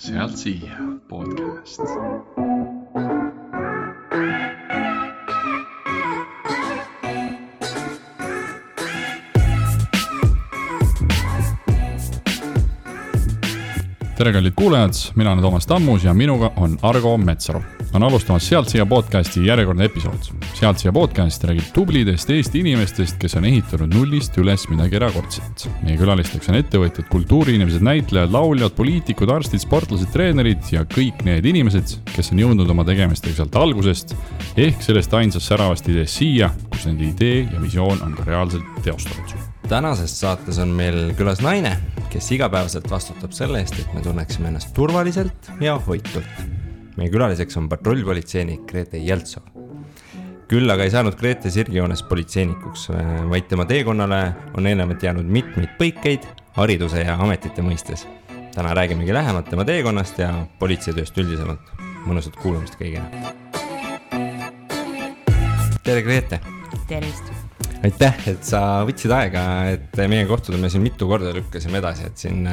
Sealt siia podcast. Tere kallid kuulajad, mina olen Toomas Tammus ja minuga on Argo Metsaru. On alustamas Sealt siia podcasti järjekordne episood. Sealt siia podcast räägib tublidest Eesti inimestest, kes on ehitanud nullist üles midagi erakordset. Meie külalisteks on ettevõtjad, kultuuriinimesed, näitlejad, lauljad, poliitikud, arstid, sportlased, treenerid ja kõik need inimesed, kes on jõudnud oma tegemistega sealt algusest ehk sellest ainsast säravast ideest siia, kus nende idee ja visioon on ka reaalselt teostatud. Tänases saates on meil külas naine, kes igapäevaselt vastutab selle eest, et me tunneksime ennast turvaliselt ja hoitult. Meie külaliseks on patrullpolitseinik Grete Jeltsov. Küll aga ei saanud Grete sirgjoones politseinikuks, vaid tema teekonnale on eelnevalt jäänud mitmeid põikeid hariduse ja ametite mõistes. Täna räägimegi lähemalt tema teekonnast ja politseitööst üldisemalt. Mõnusat kuulamist kõigile. Tere Grete! Tervist! Aitäh, et sa võtsid aega, et meie kohtuda me siin mitu korda lükkasime edasi, et siin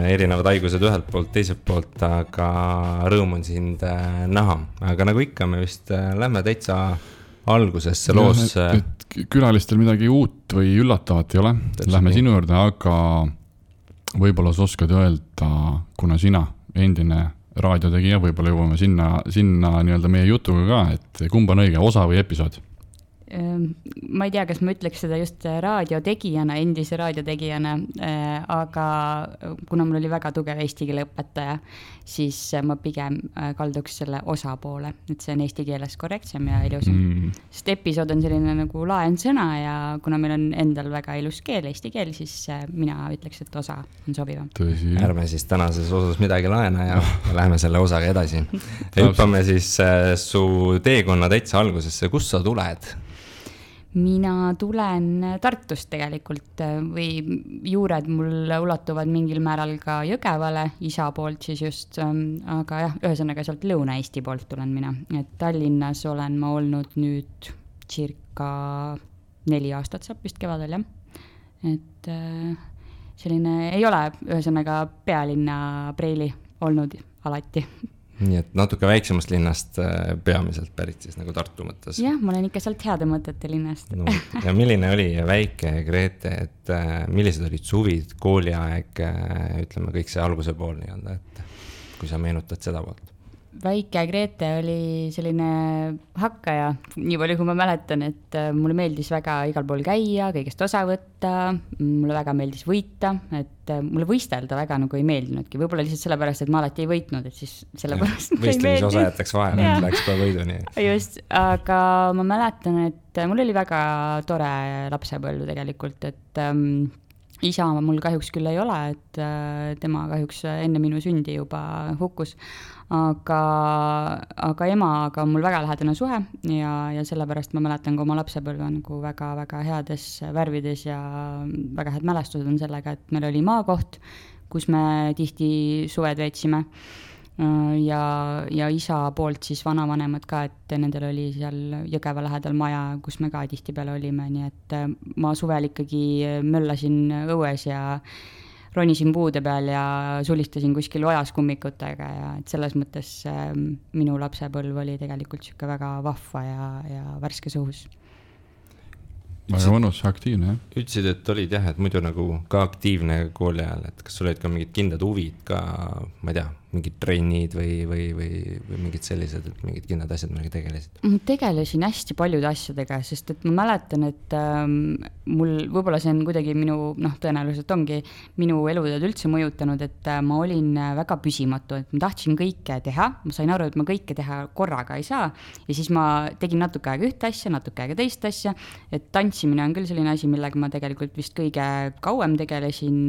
erinevad haigused ühelt poolt, teiselt poolt, aga rõõm on sind näha. Aga nagu ikka, me vist lähme täitsa algusesse loos. Et külalistel midagi uut või üllatavat ei ole. Lähme sinu juurde, aga võib-olla sa oskad öelda, kuna sina endine raadiotegija, võib-olla jõuame sinna nii-öelda meie jutuga ka, et kumb on õige, osa või episood? Ma ei tea, kas ma ütleks seda just raadiotegijana, endise raadiotegijana, aga kuna mul oli väga tugev eesti keele õpetaja, siis ma pigem kalduks selle osa poole, et see on eesti keeles korrektsem ja ilusam. Sest episood on selline nagu laen sõna ja kuna meil on endal väga ilus keel, eesti keel, siis mina ütleks, et osa on sobivam. Tõsi. Ärme siis tänases osas midagi laena ja läheme selle osaga edasi. Hüppame siis su teekonna täitsa algusesse. Kust sa tuled? Mina tulen Tartust tegelikult või juured mul ulatuvad mingil määral ka Jõgevale, isa poolt siis just, aga jah, ühesõnaga sealt Lõuna-Eesti poolt tulen mina. Et Tallinnas olen ma olnud nüüd circa 4 aastat saab vist kevadel, jah. Et selline ei ole ühesõnaga pealinna preili olnud alati. Nii et natuke väiksemast linnast peamiselt pärit siis nagu Tartu mõttes. Jah, ma olen ikka sealt heade mõtete linnast. No, ja milline oli väike Grete, et millised olid suvid, kooliaeg, ütleme kõik see alguse pool nii-öelda, et kui sa meenutad seda poolt? Väike Grete oli selline hakkaja, nii palju kui ma mäletan, et mulle meeldis väga igal pool käia, kõigest osa võtta, mulle väga meeldis võita, et mulle võistelda väga nagu ei meeldinudki, võib-olla lihtsalt sellepärast, et ma alati ei võitnud, et siis sellepärast ei meeldis. Võistlemise osa jätaks vahele, et läks ka võiduni. Just, aga ma mäletan, et mul oli väga tore lapsepõlv tegelikult, et isa mul kahjuks küll ei ole, et tema kahjuks enne minu sündi juba hukkus, aga emaga on mul väga lähedane suhe ja sellepärast ma mäletan ka oma lapsepõlve nagu väga-väga heades värvides ja väga head mälestused on sellega, et meil oli maakoht, kus me tihti suved veetsime ja isa poolt siis vanavanemad ka, et nendel oli seal Jõgeva lähedal maja, kus me ka tihti peale olime, nii et ma suvel ikkagi möllasin õues ja ronisin puude peal ja sulistasin kuskil ojas kummikutega ja et selles mõttes minu lapsepõlv oli tegelikult siuke väga vahva ja värskes õhus. Väga mõnus, aktiivne, jah? Ütlesid, et olid jah, et muidu nagu ka aktiivne kooli ajal, et kas sul olid ka mingid kindlad huvid ka, ma ei tea, mingid trennid või mingid sellised, et mingid kindlad asjad millega tegelesid? Ma tegelesin hästi paljude asjadega, sest et ma mäletan, et mul võib-olla see on kuidagi minu, tõenäoliselt ongi minu elutööd üldse mõjutanud, et ma olin väga püsimatu, et ma tahtsin kõike teha, ma sain aru, et ma kõike teha korraga ei saa ja siis ma tegin natuke aega ühte asja, natuke aega teist asja, et tantsimine on küll selline asi, millega ma tegelikult vist kõige kauem tegelesin,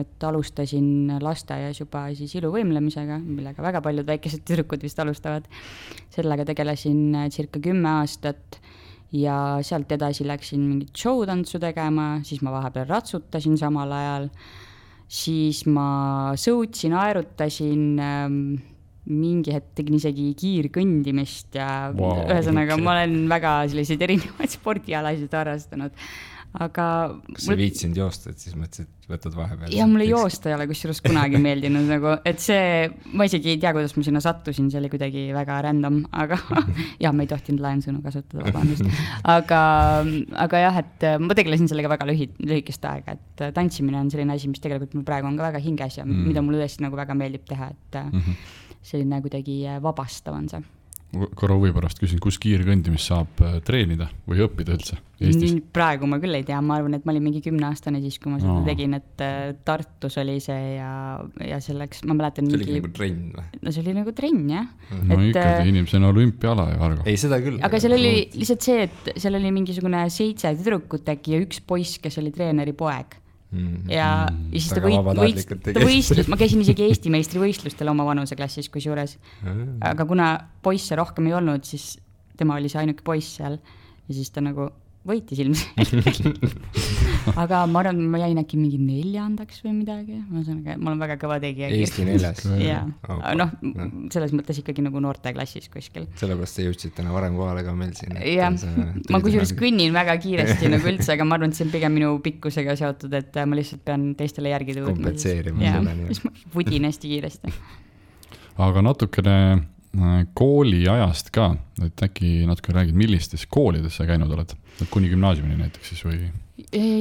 et alustasin lasteaias juba siis iluvõimlemisega, millega väga paljud väikesed tüdrukud vist alustavad. Sellega tegelesin circa 10 aastat ja sealt edasi läksin mingit showtantsu tegema, siis ma vahepeal ratsutasin samal ajal, siis ma sõutsin, aerutasin, mingi hetk tegin isegi kiirkõndimist ja ühesõnaga ma olen väga selliseid erinevaid spordialasid harrastanud. aga kas sa viitsinud joosta, et siis mõtlesid, võtad vahepeal? Ja mulle joosta ei ole kusjuures kunagi meeldinud nagu, et see, ma isegi ei tea, kuidas ma sinna sattusin, see oli kuidagi väga random, aga ja ma ei tohtinud laiensõnu kasutada, vabandust. Aga jah, et ma tegelesin sellega väga lühikest aega, et tantsimine on selline asi, mis tegelikult mul praegu on ka väga hinges ja mida mulle tõesti nagu väga meeldib teha, et selline kuidagi vabastav on see. Korra huvi pärast küsin, kus kiirkõndimist saab treenida või õppida üldse Eestis? Praegu ma küll ei tea, ma arvan, et ma olin mingi 10-aastane siis, kui ma seda tegin, et Tartus oli see ja selleks, ma mäletan see oli nagu trenn või? No see oli nagu trenn, jah. No ikkagi inimese on olümpiala ja Argo. Ei, seda küll. Aga seal oli lihtsalt see, et seal oli mingisugune 7 tüdrukut äkki ja 1 poiss, kes oli treeneri poeg. Ja siis ta võistlus, ma käisin isegi Eesti meistrivõistlustel oma vanuseklassis kusjuures, aga kuna poisse rohkem ei olnud, siis tema oli see ainuke poiss seal ja siis ta nagu võitis ilmselt. Aga ma arvan, ma jäin äkki mingi 4. või midagi, ma olen väga kõva tegija. Eesti 4. Ja, noh, selles mõttes ikkagi nagu noorteklassis kuskil. Sellepärast te jõudsid täna varem kohale ka meil siin. Ja, ma kusjuures kõnnin väga kiiresti nagu üldse, aga ma arvan, et see on pigem minu pikkusega seotud, et ma lihtsalt pean teistele järgi tõudma. Kompletseerima selle nii. Siis ma vudin hästi kiiresti. Aga natukene kooli ajast ka, et äkki natuke räägid, millistes koolides sa käinud oled? Kuni gümnaasiumini näiteks siis või?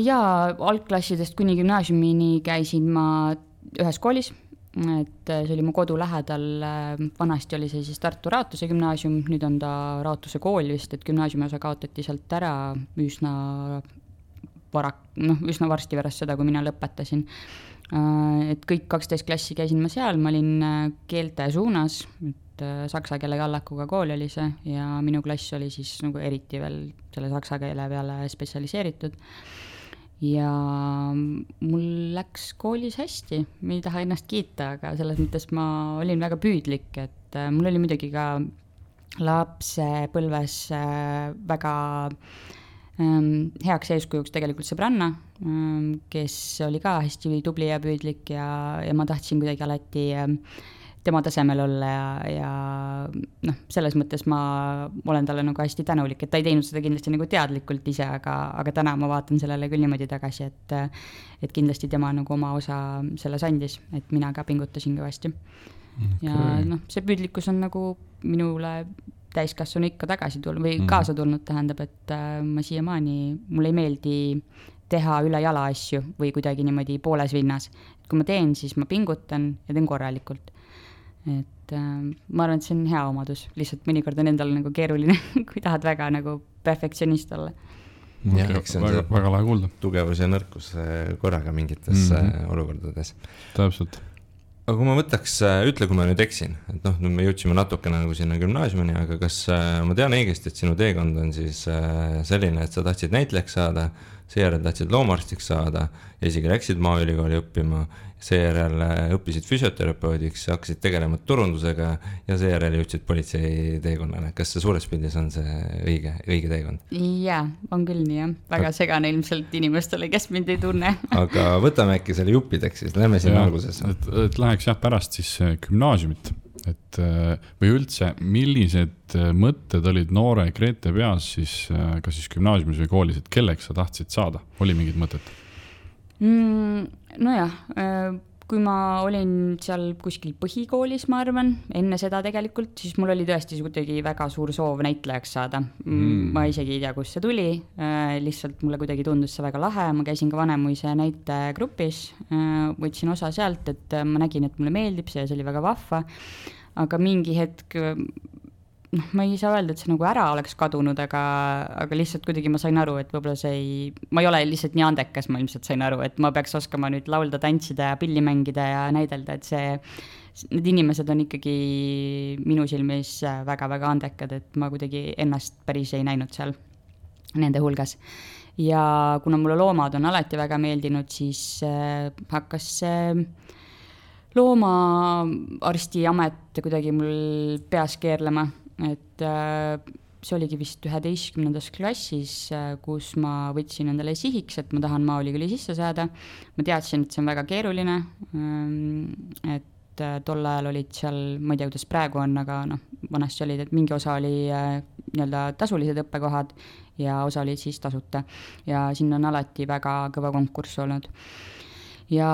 Jaa, algklassidest kuni gümnaasiumini käisin ma ühes koolis, et see oli mu kodu lähedal, vanasti oli see siis Tartu Raatuse gümnaasium, nüüd on ta Raatuse kool vist, et gümnaasiumi osa kaotati sealt ära üsna varsti pärast seda, kui mina lõpetasin. Et kõik 12 klassi käisin ma seal, ma olin keelte suunas, et saksa keele kallakuga kool oli see ja minu klass oli siis nagu eriti veel selle saksa keele peale spetsialiseeritud. Ja mul läks koolis hästi, ma ei taha ennast kiita, aga selles mõttes ma olin väga püüdlik, et mul oli muidugi ka lapsepõlves väga heaks eeskujuks tegelikult sõbranna, kes oli ka hästi tubli ja püüdlik ja ma tahtsin kuidagi alati tema tasemel olla ja selles mõttes ma olen talle nagu hästi tänulik, et ta ei teinud seda kindlasti nagu teadlikult ise, aga täna ma vaatan sellele küll niimoodi tagasi, et kindlasti tema nagu oma osa selles andis, et mina ka pingutasin kõvasti. Okay. Ja see püüdlikkus on nagu minule täiskasvanu ikka tagasi tulnud või kaasa tulnud, tähendab, et ma siiamaani, mulle ei meeldi teha üle jala asju või kuidagi niimoodi pooles vinnas. Et kui ma teen, siis ma pingutan ja teen korralikult. Et ma arvan, et see on hea omadus, lihtsalt mõnikord on endal nagu keeruline, kui tahad väga nagu perfektsionist olla. Väga lahe kuulda. Tugevus ja nõrkus korraga mingites olukordades. Täpselt. Aga kui ma võtaks, ütle, kui ma nüüd eksin, et me jõudsime natuke nagu sinna gümnaasiumini, aga kas ma tean õigesti, et sinu teekond on siis selline, et sa tahtsid näitlejaks saada, seejärel tahtsid loomaarstiks saada ja isegi läksid Maaülikooli õppima, seejärel õppisid füsioterapeutiks, hakkasid tegelema turundusega ja seejärel jõudsid politsei teekonnale. Kas see suures pildis on see õige teekond? Jaa, on küll nii, jah. Väga segane ilmselt inimestele, kes mind ei tunne. Aga võtame äkki selle juppideks, siis lähme siin alguses. Et läheks pärast siis gümnaasiumit, või üldse, millised mõtted olid noore Grete peas siis, kas siis gümnaasiumis või koolis, et kelleks sa tahtsid saada? Oli mingid mõtted? Nojah, kui ma olin seal kuskil põhikoolis, ma arvan, enne seda tegelikult, siis mul oli tõesti kuidagi väga suur soov näitlejaks saada. Ma isegi ei tea, kus see tuli, lihtsalt mulle kuidagi tundus see väga lahe, ma käisin ka Vanemuise näitegrupis, võtsin osa sealt, et ma nägin, et mulle meeldib see, see oli väga vahva, aga mingi hetk, ma ei saa öelda, et see nagu ära oleks kadunud, aga lihtsalt kuidagi ma sain aru, et võib-olla ma ei ole lihtsalt nii andekas, ma ilmselt sain aru, et ma peaks oskama nüüd laulda, tantsida ja pilli mängida ja näidelda, et need inimesed on ikkagi minu silmis väga-väga andekad, et ma kuidagi ennast päris ei näinud seal nende hulgas. Ja kuna mulle loomad on alati väga meeldinud, siis hakkas loomaarsti amet kuidagi mul peas keerlema. Et see oligi vist 11. klassis, kus ma võtsin endale sihiks, et ma tahan Maaülikooli sisse saada. Ma teadsin, et see on väga keeruline, et tol ajal olid seal, ma ei tea, kuidas praegu on, aga vanasti olid, et mingi osa oli nii-öelda tasulised õppekohad ja osa olid siis tasuta. Ja siin on alati väga kõva konkurss olnud. Ja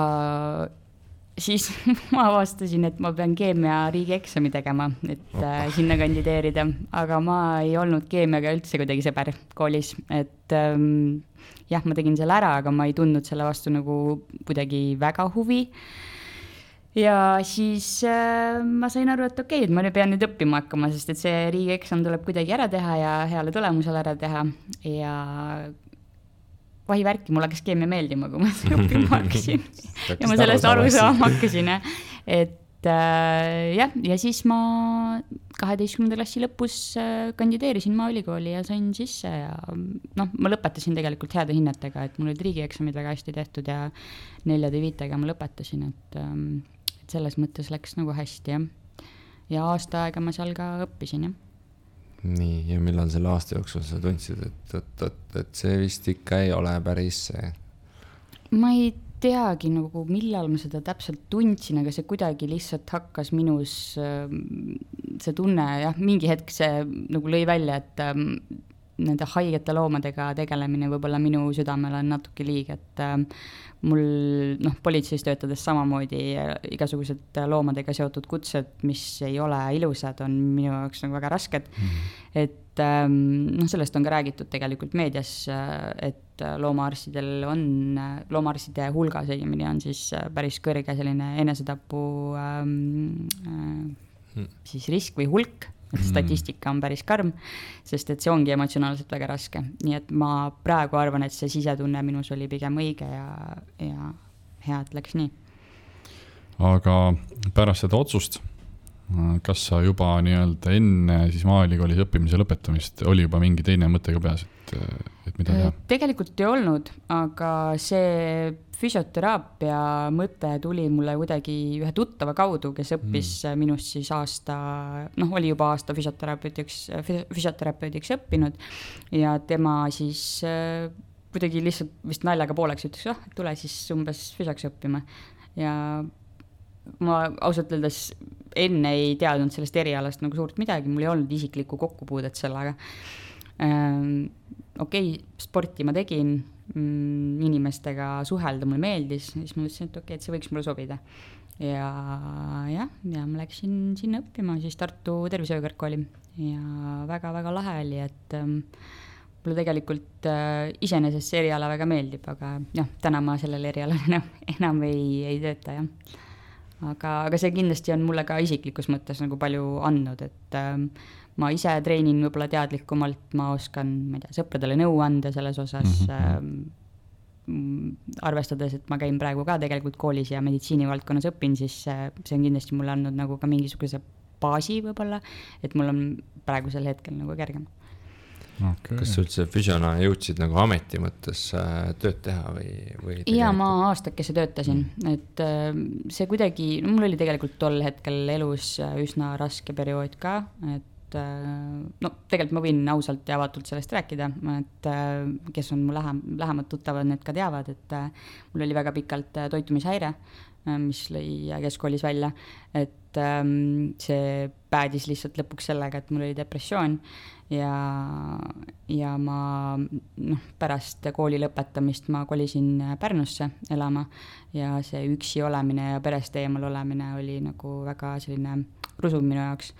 siis ma avastasin, et ma pean keemia riigieksami tegema, et sinna kandideerida, aga ma ei olnud keemiaga üldse kuidagi sõber koolis, et jah, ma tegin selle ära, aga ma ei tundnud selle vastu nagu kuidagi väga huvi. Ja siis ma sain aru, et okei, et ma pean nüüd õppima hakkama, sest et see riigieksam tuleb kuidagi ära teha ja heale tulemusele ära teha ja vahivärki, mulle hakkas keemia meeldima, kui ma seda õppima hakkasin. Ja ma sellest aru saama hakkasin. Et jah, ja siis ma 12. klassi lõpus kandideerisin Maaülikooli ja sain sisse ja ma lõpetasin tegelikult heade hinnetega, et mul olid riigieksamid väga hästi tehtud ja 4-5 ma lõpetasin, et selles mõttes läks nagu hästi ja aasta aega ma seal ka õppisin, jah. Nii, ja millal selle aasta jooksul sa tundsid, et see vist ikka ei ole päris see? Ma ei teagi, nagu, millal ma seda täpselt tundsin, aga see kuidagi lihtsalt hakkas minus see tunne, jah, mingi hetk see nagu lõi välja, et nende haigete loomadega tegelemine võib-olla minu südamel on natuke liig, et mul politseis töötades samamoodi igasugused loomadega seotud kutsed, mis ei ole ilusad, on minu jaoks nagu väga rasked. Et sellest on ka räägitud tegelikult meedias, et loomaarstide hulgas õigemini on siis päris kõrge selline enesetapu siis risk või hulk. Et statistika on päris karm, sest et see ongi emotsionaalselt väga raske. Nii et ma praegu arvan, et see sisetunne minus oli pigem õige ja hea, et läks nii. Aga pärast seda otsust, kas sa juba nii-öelda enne siis Maaülikoolis õppimise lõpetamist oli juba mingi teine mõte ka peas, et mida teha? Tegelikult ei olnud, aga see füsioteraapia mõte tuli mulle kuidagi ühe tuttava kaudu, kes õppis minust siis aasta, oli juba aasta füsioterapeudiks õppinud ja tema siis kuidagi lihtsalt vist naljaga pooleks ütles, tule siis umbes füsioks õppima ja ma ausalt öeldes enne ei teadnud sellest erialast nagu suurt midagi, mul ei olnud isiklikku kokkupuudet sellega. Okei, sporti ma tegin, inimestega suhelda mulle meeldis, siis ma mõtlesin, et okei, et see võiks mulle sobida. Ja ma läksin sinna õppima siis Tartu tervishoiukõrgkooli ja väga-väga lahe oli, et mulle tegelikult iseenesest see eriala väga meeldib, aga täna ma sellel erialal enam ei tööta, jah. Aga see kindlasti on mulle ka isiklikus mõttes nagu palju andnud, et ma ise treenin võib-olla teadlikumalt, ma oskan, sõpradele nõu anda selles osas, arvestades, et ma käin praegu ka tegelikult koolis ja meditsiinivaldkonnas õpin, siis see on kindlasti mulle andnud nagu ka mingisuguse baasi võib-olla, et mul on praegusel hetkel nagu kergem. Okay. Kas üldse füsiona jõudsid nagu ameti mõttes tööd teha või ja ma aastakese töötasin, et see kuidagi, mul oli tegelikult tol hetkel elus üsna raske periood ka, et tegelikult ma võin ausalt ja avatult sellest rääkida, et kes on mu lähemad tuttavad, need ka teavad, et mul oli väga pikalt toitumishäire, mis lõi keskkoolis välja, et see päädis lihtsalt lõpuks sellega, et mul oli depressioon ja ma pärast kooli lõpetamist ma kolisin Pärnusse elama ja see üksi olemine ja perest eemal olemine oli nagu väga selline rusuv minu jaoks,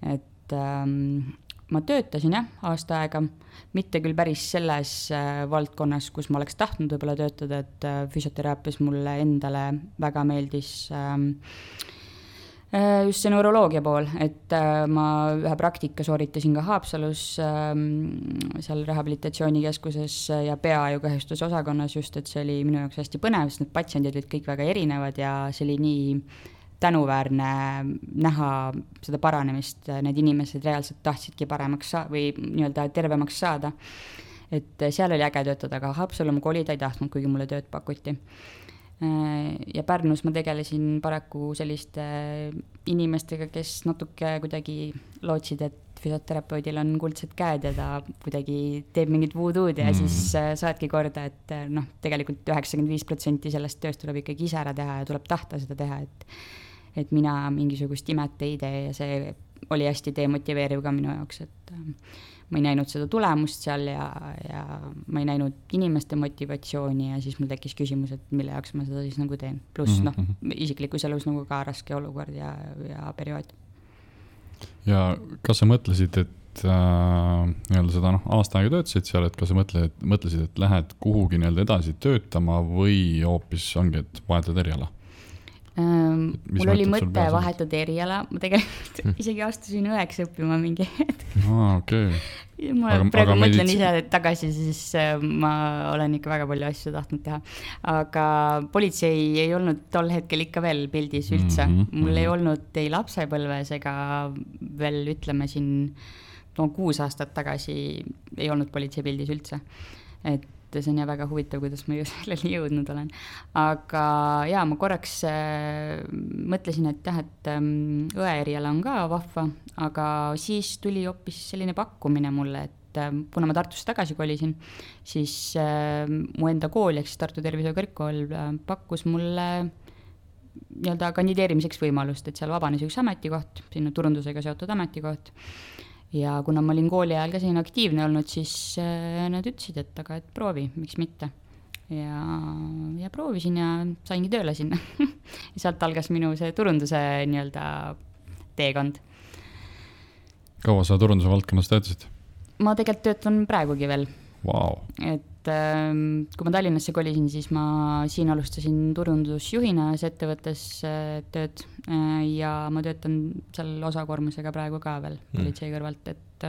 et ma töötasin aasta aega, mitte küll päris selles valdkonnas, kus ma oleks tahtnud võib-olla töötada, et füsioteraapias mulle endale väga meeldis just see neuroloogia pool, et ma ühe praktika sooritasin ka Haapsalus seal rehabilitatsioonikeskuses ja peaaegukahjustuse osakonnas just, et see oli minu jaoks hästi põnev, sest need patsiendid olid kõik väga erinevad ja see oli nii tänuväärne näha seda paranemist, need inimesed reaalselt tahtsidki paremaks või nii-öelda tervemaks saada. Et seal oli äge töötada, aga Haapsalu ma kolida ei tahtnud, kuigi mulle tööd pakuti. Ja Pärnus ma tegelesin paraku selliste inimestega, kes natuke kuidagi lootsid, et füsioterapeudil on kuldsed käed ja ta kuidagi teeb mingit voodoo'd ja siis saadki korda, et tegelikult 95% sellest tööst tuleb ikkagi ise ära teha ja tuleb tahta seda teha, et mina mingisugust imet ei tee ja see oli hästi demotiveeriv ka minu jaoks, et ma ei näinud seda tulemust seal ja ma ei näinud inimeste motivatsiooni ja siis mul tekkis küsimus, et mille jaoks ma seda siis nagu teen. Pluss isiklikus elus nagu ka raske olukord ja periood. Ja kas sa mõtlesid, et nii-öelda seda aasta aega töötasid seal, et kas sa mõtlesid, et lähed kuhugi nii-öelda edasi töötama või hoopis ongi, et vahetad eriala? Mul oli mõte vahetada eriala, ma tegelikult isegi astusin õeks õppima mingi hetk. Okay. Ma praegu mõtlen ise tagasi, siis ma olen ikka väga palju asju tahtnud teha. Aga politsei ei olnud tol hetkel ikka veel pildis üldse. Mul ei olnud ei lapsepõlves ega veel ütleme siin 6 aastat tagasi ei olnud politsei pildis üldse. Et see on ja väga huvitav, kuidas ma selleni jõudnud olen. Aga jaa, ma korraks mõtlesin, et õe eriala on ka vahva, aga siis tuli hoopis selline pakkumine mulle, et kuna ma Tartusse tagasi kolisin, siis mu enda kool, ehk siis Tartu Tervishoiu Kõrgkool pakkus mulle nii-öelda kandideerimiseks võimalust, et seal vabanes üks ametikoht, sinna turundusega seotud ametikoht. Ja kuna ma olin kooli ajal ka siin aktiivne olnud, siis nad ütlesid, et proovi, miks mitte. Ja proovisin ja saingi tööle sinna. Ja sealt algas minu see turunduse nii-öelda teekond. Kaua sa turunduse valdkonnas töötasid? Ma tegelikult töötan praegugi veel. Wow. Et kui ma Tallinnasse kolisin, siis ma siin alustasin turundusjuhina ettevõttes tööd ja ma töötan seal osakoormusega praegu ka veel politsei kõrvalt, et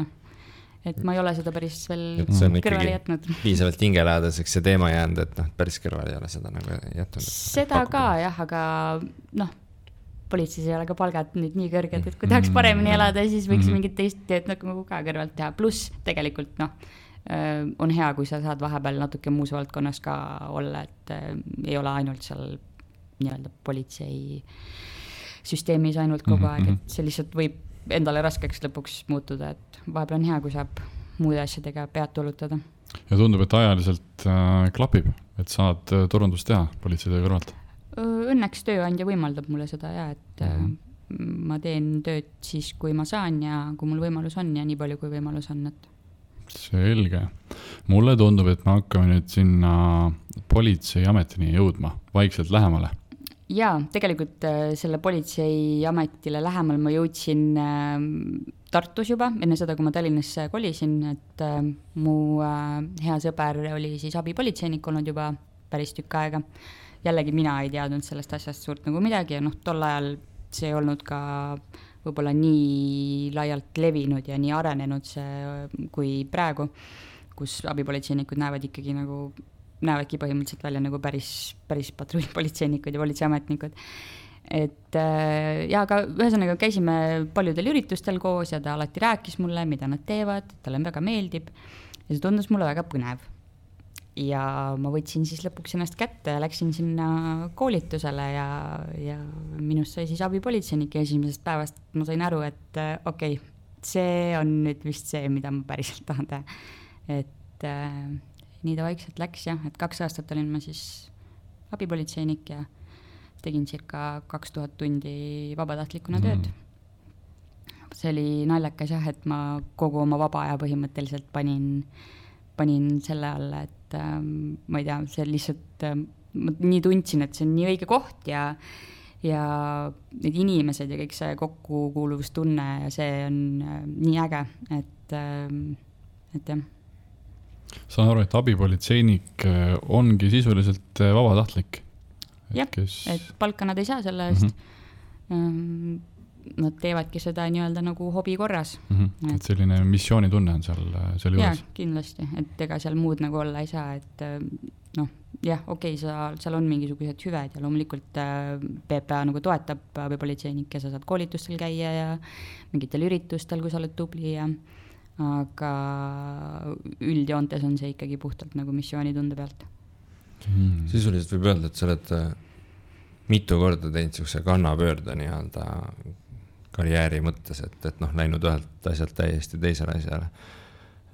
ma ei ole seda päris veel kõrvale jätnud. Piisavalt hingelähedaseks see teema jäänud, et päris kõrvale ei ole seda nagu jätnud. Seda ka jah, aga politseis ei ole ka palgad nüüd nii kõrged, et kui tahaks paremini elada, siis võiks mingit teist tööd nagu ka kõrvalt teha. Pluss tegelikult on hea, kui sa saad vahepeal natuke muus valdkonnas ka olla, et ei ole ainult seal nii-öelda politsei süsteemis ainult kogu aeg, et see lihtsalt võib endale raskeks lõpuks muutuda, et vahepeal on hea, kui saab muude asjadega pead tulutada. Ja tundub, et ajaliselt klapib, et saad turundust teha politseitöö kõrvalt? Õnneks tööandja võimaldab mulle seda ja, et ma teen tööd siis, kui ma saan ja kui mul võimalus on ja nii palju, kui võimalus on, et selge. Mulle tundub, et me hakkame nüüd sinna politseiametini jõudma vaikselt lähemale. Jaa, tegelikult selle politseiametile lähemal ma jõudsin Tartus juba, enne seda, kui ma Tallinnasse kolisin, et mu hea sõber oli siis abipolitseinik olnud juba päris tükk aega. Jällegi mina ei teadnud sellest asjast suurt nagu midagi ja tol ajal see ei olnud ka võib-olla nii laialt levinud ja nii arenenud see kui praegu, kus abipolitseinikud näevadki põhimõtteliselt välja nagu päris patrullpolitseinikud ja politseiametnikud. Et ja aga ühesõnaga käisime paljudel üritustel koos ja ta alati rääkis mulle, mida nad teevad, talle väga meeldib ja see tundus mulle väga põnev. Ja ma võtsin siis lõpuks ennast kätte ja läksin sinna koolitusele ja minust sai siis abipolitseinik ja esimesest päevast ma sain aru, et okei, see on nüüd vist see, mida ma päriselt tahan teha. Et nii ta vaikselt läks jah, et 2 aastat olin ma siis abipolitseinik ja tegin circa 2000 tundi vabatahtlikuna tööd. See oli naljakas jah, et ma kogu oma vaba aja põhimõtteliselt panin selle alla, et ma ei tea, see lihtsalt ma nii tundsin, et see on nii õige koht ja need inimesed ja kõik see kokkukuuluvustunne ja see on nii äge, et jah. Saan aru, et abipolitseinik ongi sisuliselt vabatahtlik? Jah, et palka nad ei saa selle eest. Nad teevadki seda nii-öelda nagu hobi korras. Et selline missioonitunne on seal juures? Jah, kindlasti, et ega seal muud nagu olla ei saa, et jah, okei, seal on mingisugused hüved ja loomulikult PPA nagu toetab abipolitseinik ja sa saad koolitustel käia ja mingitel üritustel, kui sa oled tubli aga üldjoontes on see ikkagi puhtalt nagu missioonitunde pealt. Sisuliselt võib öelda, et sa oled mitu korda teinud sellise kannapöörde nii-öelda karjääri mõttes, et läinud ühelt asjalt täiesti teisele asjale.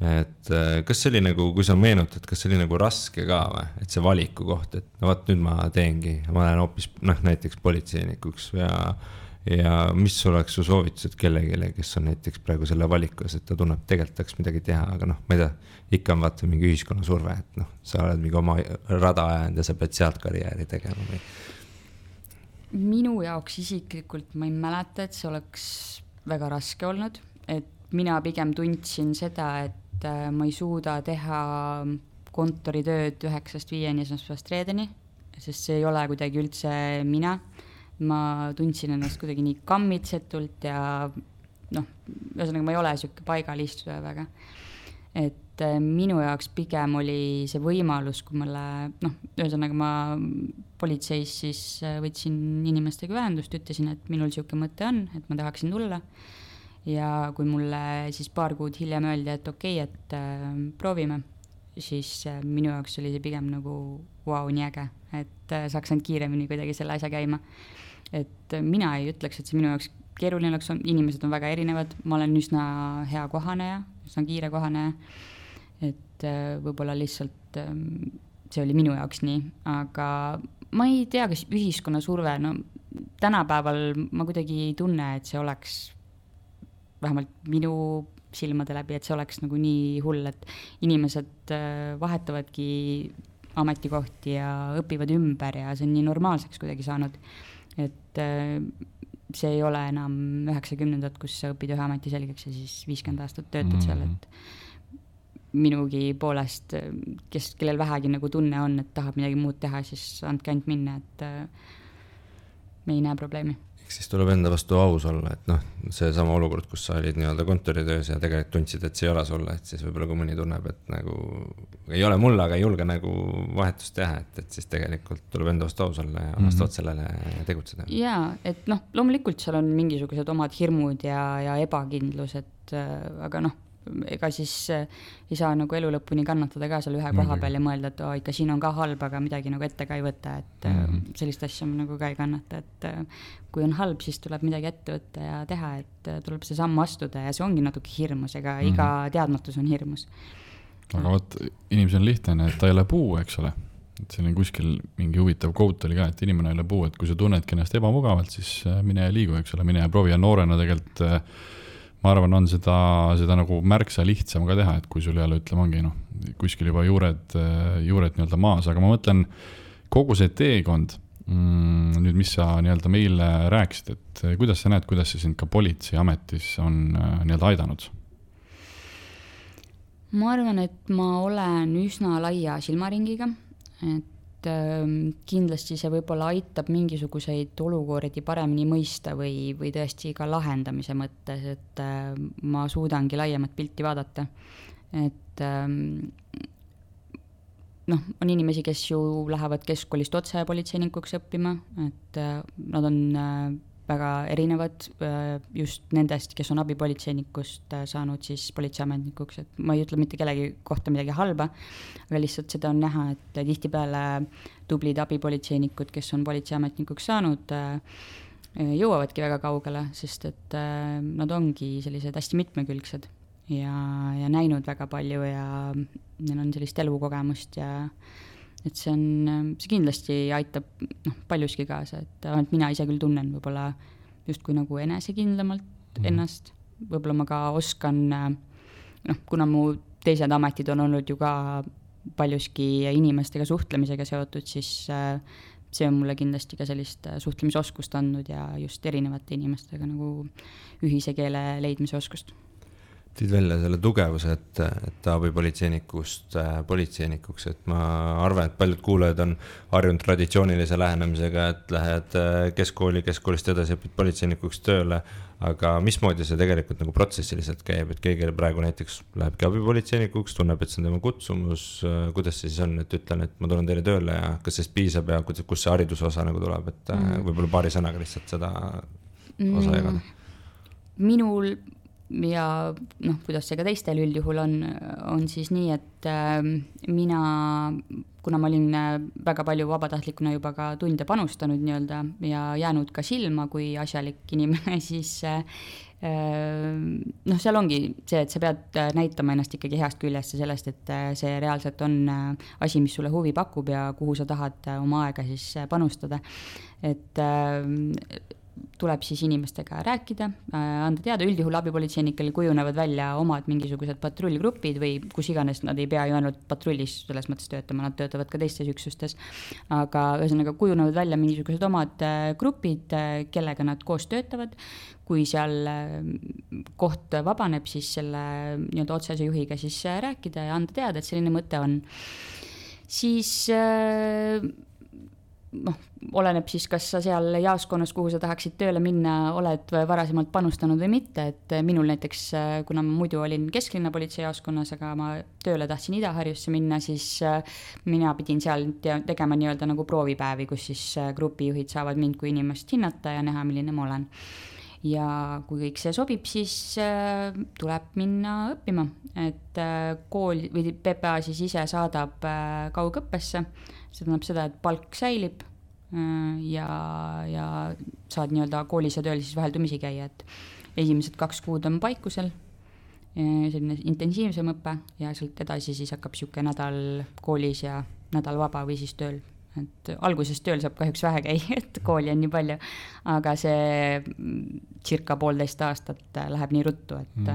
Et kas see oli nagu, kui sa meenutad, kas see oli nagu raske ka või? Et see valiku koht, et vaat nüüd ma teengi, ma olen hoopis näiteks politseinikuks ja mis oleks su soovitused kellegile, kes on näiteks praegu selle valikus, et ta tunneb, tegelikult tahaks midagi teha, aga noh, ma ei tea, ikka on vaata mingi ühiskonna surve, et noh, sa oled mingi oma rada ajanud ja sa pead sealt karjääri tegema või? Minu jaoks isiklikult ma ei mäleta, et see oleks väga raske olnud, et mina pigem tundsin seda, et ma ei suuda teha kontoritööd 9-5 esmaspäevast reedeni, sest see ei ole kuidagi üldse mina. Ma tundsin ennast kuidagi nii kammitsetult ja noh, ühesõnaga ma ei ole siuke paigalistuja väga. Et minu jaoks pigem oli see võimalus, kui mulle, noh, ühesõnaga ma politseis siis võtsin inimestega ühendust, ütlesin, et minul siuke mõte on, et ma tahaksin tulla. Ja kui mulle siis paar kuud hiljem öeldi, et okei, et proovime, siis minu jaoks oli see pigem nagu vau, nii äge, et saaks ainult kiiremini kuidagi selle asja käima. Et mina ei ütleks, et see minu jaoks keeruline oleks, inimesed on väga erinevad, ma olen üsna hea kohaneja, üsna kiire kohaneja, et võib-olla lihtsalt see oli minu jaoks nii, aga ma ei tea, kas ühiskonna surve, no tänapäeval ma kuidagi ei tunne, et see oleks vähemalt minu silmade läbi, et see oleks nagu nii hull, et inimesed vahetavadki ametikohti ja õpivad ümber ja see on nii normaalseks kuidagi saanud, et see ei ole enam 90-ndad, kus sa õpid ühe ameti selgeks ja siis 50 aastat töötad seal, et minugi poolest, kellel vähegi nagu tunne on, et tahab midagi muud teha, siis andke ainult minna, et me ei näe probleemi. Siis tuleb enda vastu aus olla, et noh, see sama olukord, kus sa olid nii-öelda kontoritöös ja tegelikult tundsid, et see ei ole sulle, et siis võib-olla kui mõni tunneb, et nagu ei ole mulle, aga ei julge nagu vahetust teha, et siis tegelikult tuleb enda vastu aus olla ja vastavalt sellele tegutseda. Jaa, et noh, loomulikult seal on mingisugused omad hirmud ja ebakindlus, et aga noh, ega siis ei saa nagu elu lõpuni kannatada ka seal ühe koha peal ja mõelda, et ikka siin on ka halb, aga midagi nagu ette ka ei võtta, et sellist asja nagu ka ei kannata, et kui on halb, siis tuleb midagi ette võtta ja teha, et tuleb see samm astuda ja see ongi natuke hirmus, ega iga teadmatus on hirmus. Aga võt, inimesel on lihtne, et ta ei ole puu, eks ole, et siin on kuskil mingi huvitav quote oli ka, et inimene ei ole puu, et kui sa tunnedki ennast ebamugavalt, siis mine ja liigu, eks ole, mine ja proovi ja noorena tegelikult ma arvan, on seda nagu märksa lihtsam ka teha, et kui sul jälle ütleme ongi kuskil juba juured nii-öelda maas, aga ma mõtlen kogu see teekond, nüüd mis sa nii-öelda meile rääkisid, et kuidas sa näed, kuidas see sind ka politseiametis on nii-öelda aidanud? Ma arvan, et ma olen üsna laia silmaringiga, et kindlasti see võib-olla aitab mingisuguseid olukordi paremini mõista või tõesti ka lahendamise mõttes, et ma suudangi laiemat pilti vaadata. Et noh, on inimesi, kes ju lähevad keskkoolist otse politseinikuks õppima, et nad on väga erinevad just nendest, kes on abipolitseinikust saanud siis politseiametnikuks, et ma ei ütle mitte kellegi kohta midagi halba, aga lihtsalt seda on näha, et tihtipeale tublid abipolitseinikud, kes on politseiametnikuks saanud, jõuavadki väga kaugele, sest et nad ongi sellised hästi mitmekülgsed ja näinud väga palju ja neil on sellist elukogemust ja et see kindlasti aitab paljuski kaasa, et ainult mina ise küll tunnen võib-olla justkui nagu enesekindlamalt ennast, võib-olla ma ka oskan, kuna mu teised ametid on olnud ju ka paljuski inimestega suhtlemisega seotud, siis see on mulle kindlasti ka sellist suhtlemisoskust andnud ja just erinevate inimestega nagu ühise keele leidmise oskust. Tiid välja selle tugevuse, et abipolitseinikust politseinikuks, et ma arvan, et paljud kuulajad on harjunud traditsioonilise lähenemisega, et lähed keskkoolist edasi õpid politseinikuks tööle, aga mismoodi see tegelikult nagu protsessiliselt käib, et keegi praegu näiteks lähebki abipolitseinikuks, tunneb, et see on tema kutsumus, kuidas see siis on, et ütlen, et ma tulen teile tööle ja kas sellest piisab ja kus see hariduse osa nagu tuleb, et võib-olla paari sõnaga lihtsalt seda osa jagada? Minul ja kuidas see ka teistel üldjuhul on siis nii, et mina, kuna ma olin väga palju vabatahtlikuna juba ka tunde panustanud nii-öelda ja jäänud ka silma kui asjalik inimene, siis seal ongi see, et sa pead näitama ennast ikkagi heast küljest ja sellest, et see reaalselt on asi, mis sulle huvi pakub ja kuhu sa tahad oma aega siis panustada. Et tuleb siis inimestega rääkida, anda teada, üldjuhul abipolitseinikel kujunevad välja omad mingisugused patrullgrupid või kus iganes, nad ei pea ju ainult patrullis selles mõttes töötama, nad töötavad ka teistes üksustes, aga ühesõnaga kujunevad välja mingisugused omad grupid, kellega nad koos töötavad. Kui seal koht vabaneb, siis selle nii-öelda otsese juhiga siis rääkida ja anda teada, et selline mõte on. Siis oleneb siis, kas sa seal jaoskonnas, kuhu sa tahaksid tööle minna, oled varasemalt panustanud või mitte, et minul näiteks, kuna ma muidu olin kesklinna politsei jaoskonnas, aga ma tööle tahtsin Ida-Harjusse minna, siis mina pidin seal tegema nii-öelda nagu proovipäevi, kus siis grupijuhid saavad mind kui inimest hinnata ja näha, milline ma olen. Ja kui kõik see sobib, siis tuleb minna õppima, et kool või PPA siis ise saadab kaugõppesse, see tähendab seda, et palk säilib ja saad nii-öelda koolis ja tööl siis vaheldumisi käia, et esimesed 2 kuud on paikusel, selline intensiivsem õpe ja sealt edasi siis hakkab siuke nädal koolis ja nädal vaba või siis tööl. Et alguses tööl saab kahjuks vähe käia, et kooli on nii palju, aga see circa 1,5 aastat läheb nii ruttu, et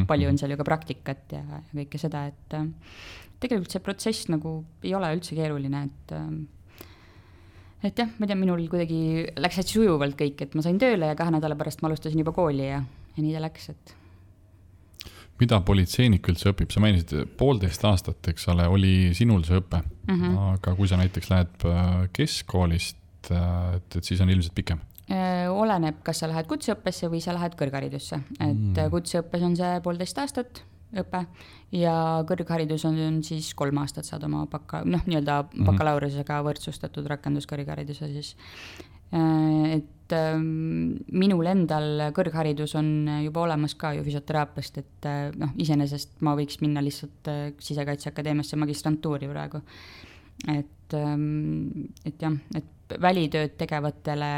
palju on seal ju ka praktikat ja kõike seda, et tegelikult see protsess nagu ei ole üldse keeruline, et jah, ma tean, minul kuidagi läks hästi sujuvalt kõik, et ma sain tööle ja 2 nädala pärast ma alustasin juba kooli ja nii ta läks, et mida politseinik üldse õpib? Sa mainisid 1,5 aastat, eks ole, oli sinul see õpe, aga kui sa näiteks lähed keskkoolist, et siis on ilmselt pikem? Oleneb, kas sa lähed kutseõppesse või sa lähed kõrgharidusse, et kutseõppes on see 1,5 aastat õpe ja kõrgharidus on siis 3 aastat saad oma nii-öelda bakalaureusega võrdsustatud rakenduskõrghariduse siis. Et minul endal kõrgharidus on juba olemas ka ju füsioteraapiast, et iseenesest ma võiks minna lihtsalt Sisekaitseakadeemiasse magistrantuuri praegu. Et jah, et välitööd tegevatele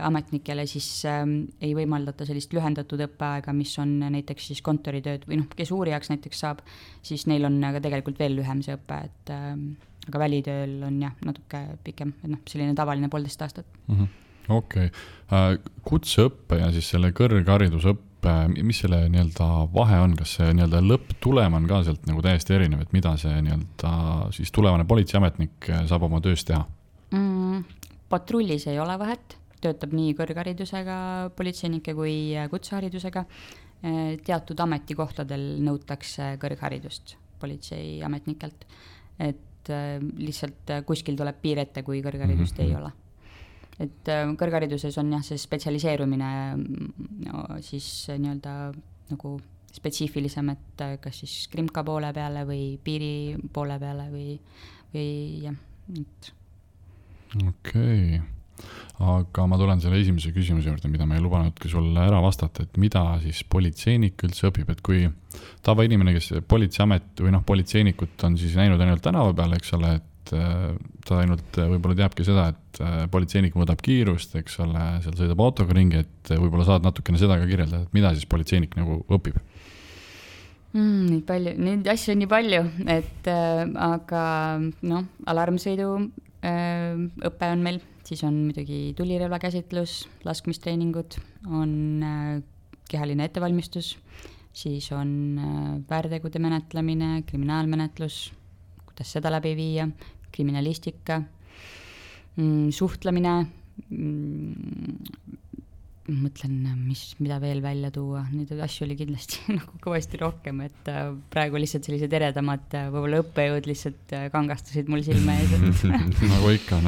ametnikele siis ei võimaldata sellist lühendatud õppeaega, mis on näiteks siis kontoritööd või kes uurijaks näiteks saab, siis neil on aga tegelikult veel lühem see õpe, et aga välitööl on jah, natuke pikem, et selline tavaline 1,5 aastat. Okei. Kutseõppe ja siis selle kõrgharidusõppe, mis selle nii-öelda vahe on, kas see nii-öelda lõpptulem on ka sealt nagu täiesti erinev, et mida see nii-öelda siis tulevane politseiametnik saab oma töös teha? Patrullis ei ole vahet, töötab nii kõrgharidusega politseinikke kui kutseharidusega. Teatud ametikohtadel nõutakse kõrgharidust politseiametnikelt, et lihtsalt kuskil tuleb piir ette, kui kõrgharidust ei ole. Et kõrghariduses on jah, see spetsialiseerumine siis nii-öelda nagu spetsiifilisem, et kas siis krimka poole peale või piiri poole peale või jah, et Okei. Aga ma tulen selle esimese küsimuse juurde, mida ma ei lubanudki sulle ära vastata, et mida siis politseinik üldse õpib, et kui tavainimene, kes politseiamet või politseinikut on siis näinud ainult tänava peal, eks ole, et ta ainult võib-olla teabki seda, et politseinik mõõdab kiirust, eks ole, seal sõidab autoga ringi, et võib-olla saad natukene seda ka kirjeldada, et mida siis politseinik nagu õpib? Neid asju on nii palju, et aga alarmsõidu õpe on meil, siis on muidugi tulirelva käsitlus, laskmistreeningud, on kehaline ettevalmistus, siis on väärtegude menetlemine, kriminaalmenetlus, kuidas seda läbi viia, kriminalistika, suhtlemine, mõtlen, mida veel välja tuua, neid asju oli kindlasti nagu kõvasti rohkem, et praegu lihtsalt sellised eredamad võib-olla õppejõud lihtsalt kangastasid mul silme ees. Nagu ikka.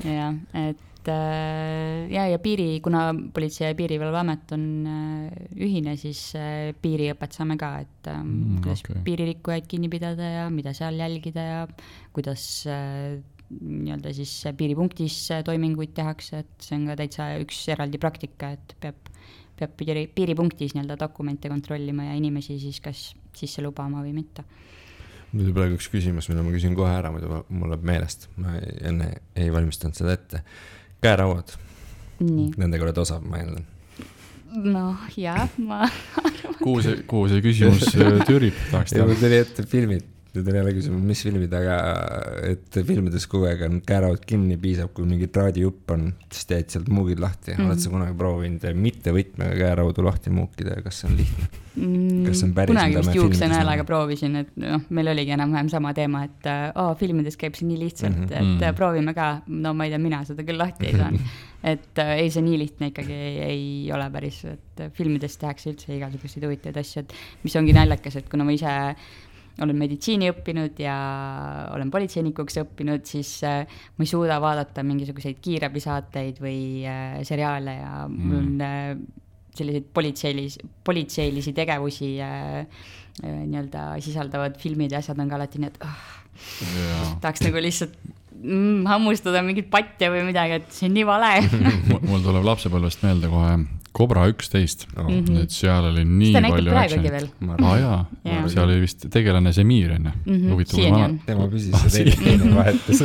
Ja, et ja kuna Politsei- ja Piirivalveamet on ühine, siis piiriõpet saame ka, et kuidas piiririkkujaid kinni pidada ja mida seal jälgida ja kuidas nii-öelda siis piiripunktis toiminguid tehakse, et see on ka täitsa üks eraldi praktika, et peab piiripunktis nii-öelda dokumente kontrollima ja inimesi siis kas sisse lubama või mitte. Nüüd praegu üks küsimus, mida ma küsin kohe ära, mul läheb meelest, ma enne ei valmistanud seda ette. Käerauad, nendega oled osav, ma eeldan. Jah, ma arvan. Kuhu see küsimus tüürib? Ja mul tuli ette filmid Nüüd on jälle küsima, mis filmid, aga et filmides kogu aeg on kääravad kinni, piisab, kui mingi traadijupp on, siis teed sealt muugid lahti. Oled sa kunagi proovinud mitte võtmega kääraudu lahti muukida ja kas see on lihtne? Kas see on päris, kunagi vist juuksenäelaga proovisin, et meil oligi enam-vähem sama teema, et filmides käib see nii lihtsalt, et proovime ka, no ma ei tea, mina seda küll lahti ei saa. Et ei, see nii lihtne ikkagi ei ole päris, et filmides tehakse üldse igasuguseid huvitavaid asju, et mis ongi naljakas, et kuna ma ise olen meditsiini õppinud ja olen politseinikuks õppinud, siis ma ei suuda vaadata mingisuguseid kiirabisaateid või seriaale ja mul on selliseid politseilisi tegevusi nii-öelda sisaldavad filmid ja asjad on ka alati nii, et tahaks nagu lihtsalt hammustada mingit patja või midagi, et see on nii vale. Mul tuleb lapsepõlvest meelde kohe Cobra 11, et seal oli nii palju actionit. Seal oli vist tegelane Semir, tema püsis see teine vahetus.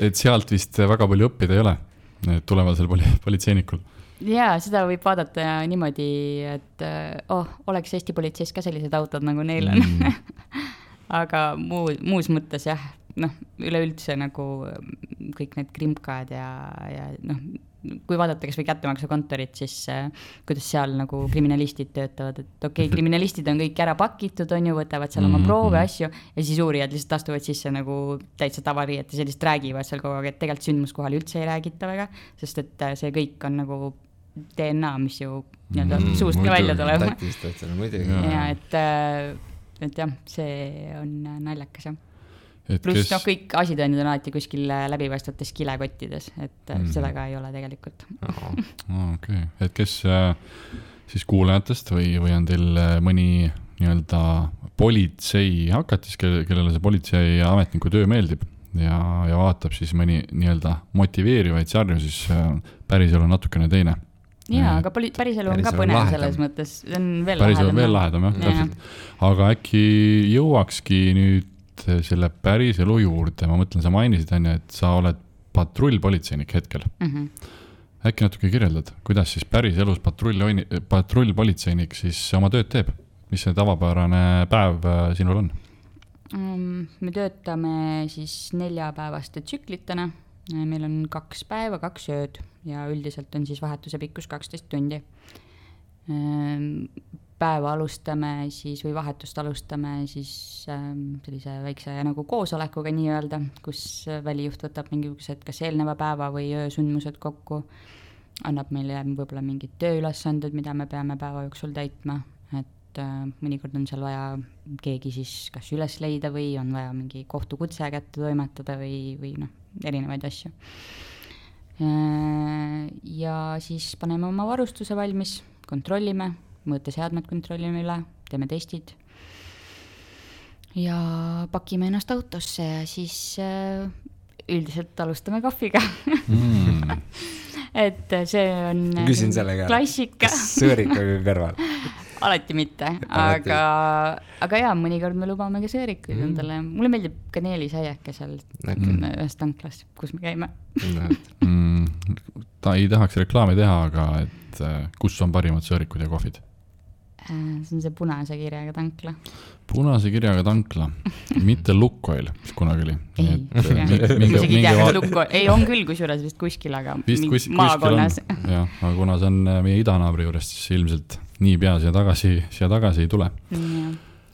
et sealt vist väga palju õppida ei ole, tulevasel politseinikul. Jaa, seda võib vaadata niimoodi, et oleks Eesti politseis ka sellised autod, nagu neil on. Aga muus mõttes jah, üleüldse nagu kõik need krimkad ja kui vaadata kas või kättemaksukontorit, siis kuidas seal nagu kriminalistid töötavad, et kriminalistid on kõik ära pakitud, on ju, võtavad seal oma proove, asju ja siis uurijad lihtsalt astuvad sisse nagu täitsa tavariiet ja sellist räägivad seal kogu aeg, et tegelikult sündmuskohal üldse ei räägita väga, sest et see kõik on nagu DNA, mis ju suust ka välja tuleb. Ja et jah, see on naljakas jah. Pluss kõik asitõendid on alati kuskil läbipaistvates kilekottides, et seda ka ei ole tegelikult. Okay. Et kes siis kuulajatest või on teil mõni nii-öelda politsei hakatis, kellele see politsei ametniku töö meeldib ja vaatab siis mõni nii-öelda motiveerivaid sarju, siis päriselu on natukene teine. Jaa, aga päriselu on ka põnev selles mõttes, see on veel lahedam. Veel lahedam, jah, täpselt. Aga äkki jõuakski nüüd selle päriselu juurde, ma mõtlen, sa mainisid, et sa oled patrullpolitseinik hetkel. Äkki natuke kirjeldad, kuidas siis päriselus patrullpolitseinik siis oma tööd teeb? Mis see tavapärane päev sinul on? Me töötame siis 4-päevaste tsüklitena. Meil on 2 päeva, 2 ööd ja üldiselt on siis vahetuse pikkus 12 tundi. Päeva alustame siis või vahetust alustame siis sellise väikse nagu koosolekuga nii öelda, kus välijuht võtab mingisugused kas eelneva päeva või öösündmused kokku, annab meile võib-olla mingid tööülesanded, mida me peame päeva jooksul täitma, et mõnikord on seal vaja keegi siis kas üles leida või on vaja mingi kohtukutse kätte toimetada või erinevaid asju. Ja siis paneme oma varustuse valmis, kontrollime, mõõteseadmed kontrollime üle, teeme testid ja pakime ennast autosse ja siis üldiselt alustame kohviga. Et see on küsin sellega, klassika. Kas sõõrikaga kõrval? Alati mitte, aga jaa, mõnikord me lubame ka sõõrikuid endale. Mulle meeldib kaneelisaiake seal ühes tanklas, kus me käime. Ta ei tahaks reklaami teha, aga et kus on parimad sõõrikud ja kohvid? See on see punase kirjaga tankla. Punase kirjaga tankla, mitte Lukoil, mis kunagi oli. Ei, on küll kusjuures vist kuskil, aga maakonnas. Jah, aga kuna see on meie idanaabri juures, siis ilmselt nii pea siia tagasi ei tule.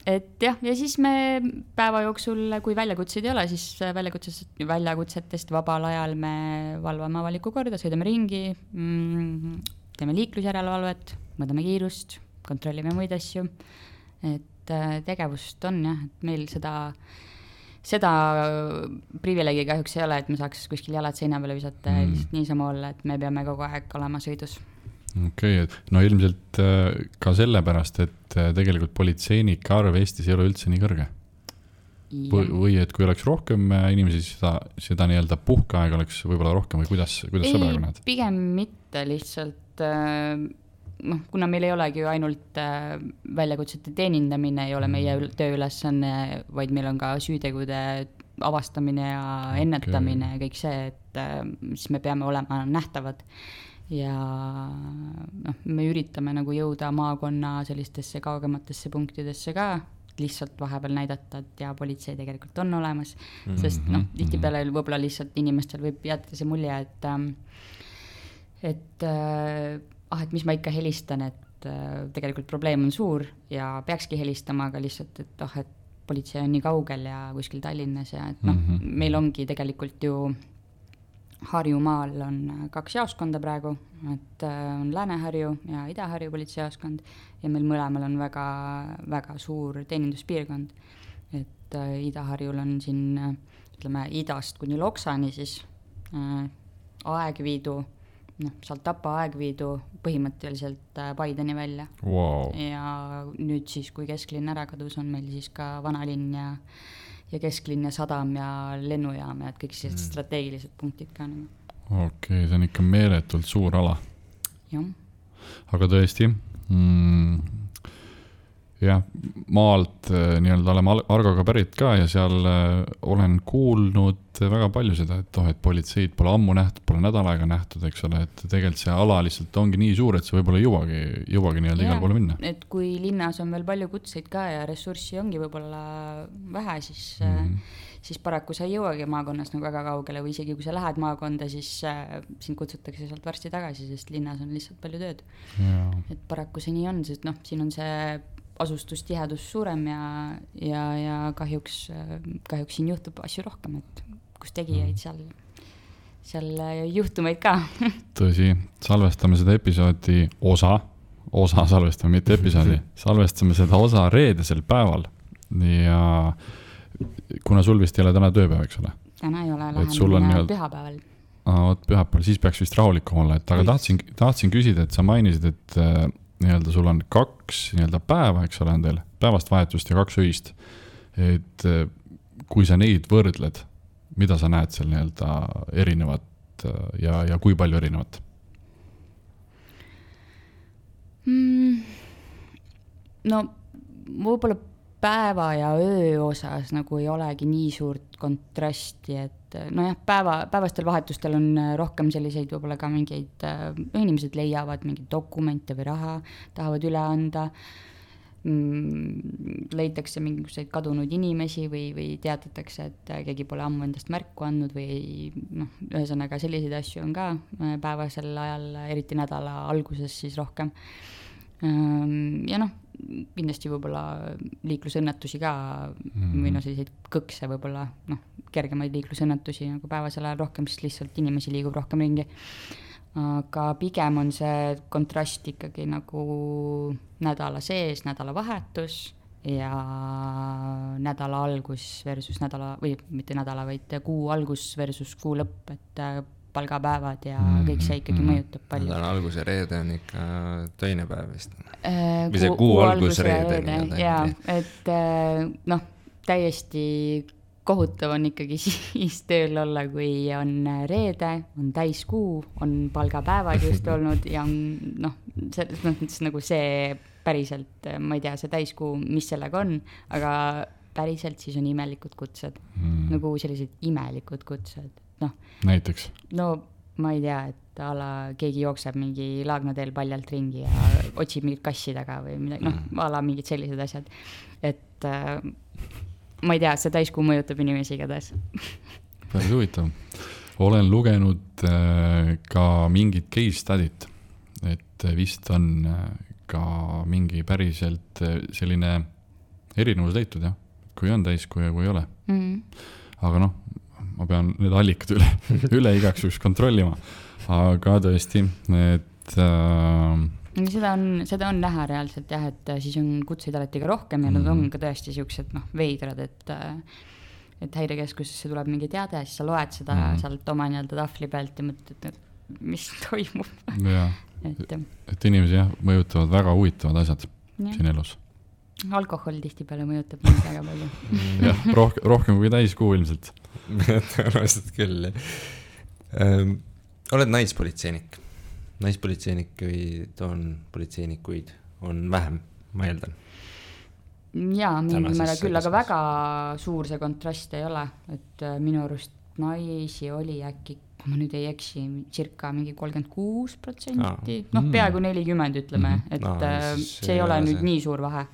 Et jah, ja siis me päeva jooksul, kui väljakutseid ei ole, siis väljakutsetest vabal ajal me valvame avalikku korda, sõidame ringi, teeme liiklusjärelevalvet, mõõdame kiirust, kontrollime muid asju, et tegevust on jah, et meil seda privileegi kahjuks ei ole, et me saaks kuskil jalad seina peale visata ja lihtsalt niisama olla, et me peame kogu aeg olema sõidus. Okei, no ilmselt ka sellepärast, et tegelikult politseinike arv Eestis ei ole üldse nii kõrge. Või et kui oleks rohkem inimesi, seda nii-öelda puhkeaeg oleks võib-olla rohkem või kuidas sa praegu näed? Pigem mitte lihtsalt, kuna meil ei olegi ju ainult väljakutsete teenindamine, ei ole meie tööülesanne, vaid meil on ka süütegude avastamine ja ennetamine ja kõik see, et siis me peame olema nähtavad. Ja me üritame nagu jõuda maakonna sellistesse kaugematesse punktidesse ka, lihtsalt vahepeal näidata, et ja politsei tegelikult on olemas, sest noh, tihtipeale võib-olla lihtsalt inimestel võib jätta see mulje, et mis ma ikka helistan, et tegelikult probleem on suur ja peakski helistama, aga lihtsalt, et et politsei on nii kaugel ja kuskil Tallinnas ja et meil ongi tegelikult ju Harjumaal on 2 jaoskonda praegu, et on Lääne-Harju ja Ida-Harju politseijaoskond ja meil mõlemal on väga, väga suur teeninduspiirkond. Et Ida-Harjul on siin, ütleme, idast kuni Loksani siis Aegviidu, sealt Tapa Aegviidu põhimõtteliselt Paideni välja. Wow. Ja nüüd siis, kui kesklinn ära kadus, on meil siis ka vanalinn ja kesklinn ja sadam ja lennujaam ja kõik sellised strateegilised punktid ka. Okei, see on ikka meeletult suur ala. Jah. Aga tõesti, jah, maalt nii-öelda oleme Argoga pärit ka ja seal olen kuulnud väga palju seda, et politseid pole ammu nähtud, pole nädal aega nähtud, eks ole, et tegelikult see ala lihtsalt ongi nii suur, et see võib-olla jõuagi nii-öelda igal poole minna. Et kui linnas on veel palju kutseid ka ja ressurssi ongi võib-olla vähe, siis paraku sa ei jõuagi maakonnas nagu väga kaugele või isegi kui sa lähed maakonda, siis sind kutsutakse sealt varsti tagasi, sest linnas on lihtsalt palju tööd. Ja. Et paraku see nii on, sest siin on see asustustihedus suurem ja kahjuks siin juhtub asju rohkem, et kus tegijaid seal juhtumeid ka. Tõsi, salvestame seda episoodi osa salvestame, mitte episoodi, salvestame seda osa reedesel päeval ja kuna sul vist ei ole täna tööpäev, eks ole? Täna ei ole, läheme pühapäeval. Pühapäeval, siis peaks vist rahulikum olla, aga tahtsin küsida, et sa mainisid, et nii-öelda sul on 2 nii-öelda päeva, eks ole, on teil päevast vahetust ja 2 öist, et kui sa neid võrdled, mida sa näed seal nii-öelda erinevat ja kui palju erinevat? No võib-olla päeva ja öö osas nagu ei olegi nii suurt kontrasti, et nojah, päevastel vahetustel on rohkem selliseid võib-olla ka mingeid, inimesed leiavad mingeid dokumente või raha, tahavad üle anda, leitakse mingisuguseid kadunud inimesi või teatatakse, et keegi pole ammu endast märku andnud või ühesõnaga selliseid asju on ka päevasel ajal, eriti nädala alguses siis rohkem. Ja kindlasti võib-olla liiklusõnnetusi ka või selliseid kõkse võib-olla kergemaid liiklusõnnetusi nagu päevasel ajal rohkem, sest lihtsalt inimesi liigub rohkem ringi. Aga pigem on see kontrast ikkagi nagu nädala sees, nädala vahetus ja nädala algus versus või mitte nädala, vaid kuu algus versus kuu lõpp, et palgapäevad ja kõik see ikkagi mõjutab palju. Nädala algus ja reede on ikka töine päev vist. Või see kuu algus reede. Jaa, et täiesti kohutav on ikkagi siis tööl olla, kui on reede, on täiskuu, on palgapäevad just olnud ja on selles mõttes nagu see päriselt, ma ei tea, see täiskuu, mis sellega on, aga päriselt siis on imelikud kutsed, nagu sellised imelikud kutsed. Näiteks? No ma ei tea, et keegi jookseb mingi Laagnateel paljalt ringi ja otsib mingit kassi taga või midagi, mingid sellised asjad. Et ma ei tea, see täiskuu mõjutab inimesi igatahes. Päris huvitav. Olen lugenud ka mingit case study't, et vist on ka mingi päriselt selline erinevus leitud, jah? Kui on täiskuu ja kui ei ole. Aga ma pean need allikad üle igaks juhuks kontrollima. Aga tõesti, et seda on näha reaalselt jah, et siis on kutseid alati ka rohkem ja nad on ka tõesti siuksed veidrad, et häirekeskusesse tuleb mingi teade, siis sa loed seda sealt oma nii-öelda tahvli pealt ja mõtled, et mis toimub. Et inimesi jah, mõjutavad väga huvitavad asjad siin elus. Alkohol tihtipeale mõjutab mind väga palju. Jah, rohkem kui täiskuu ilmselt. Tõenäoliselt küll. Oled naispolitseinik. Naispolitseinikuid politseinikuid on vähem, ma eeldan. Jaa, mingil määral küll, aga väga suur see kontrast ei ole. Et minu arust naisi oli äkki, kui ma nüüd ei eksi, circa mingi 36%, peaaegu 40 ütleme, et see ei ole nüüd nii suur vahe.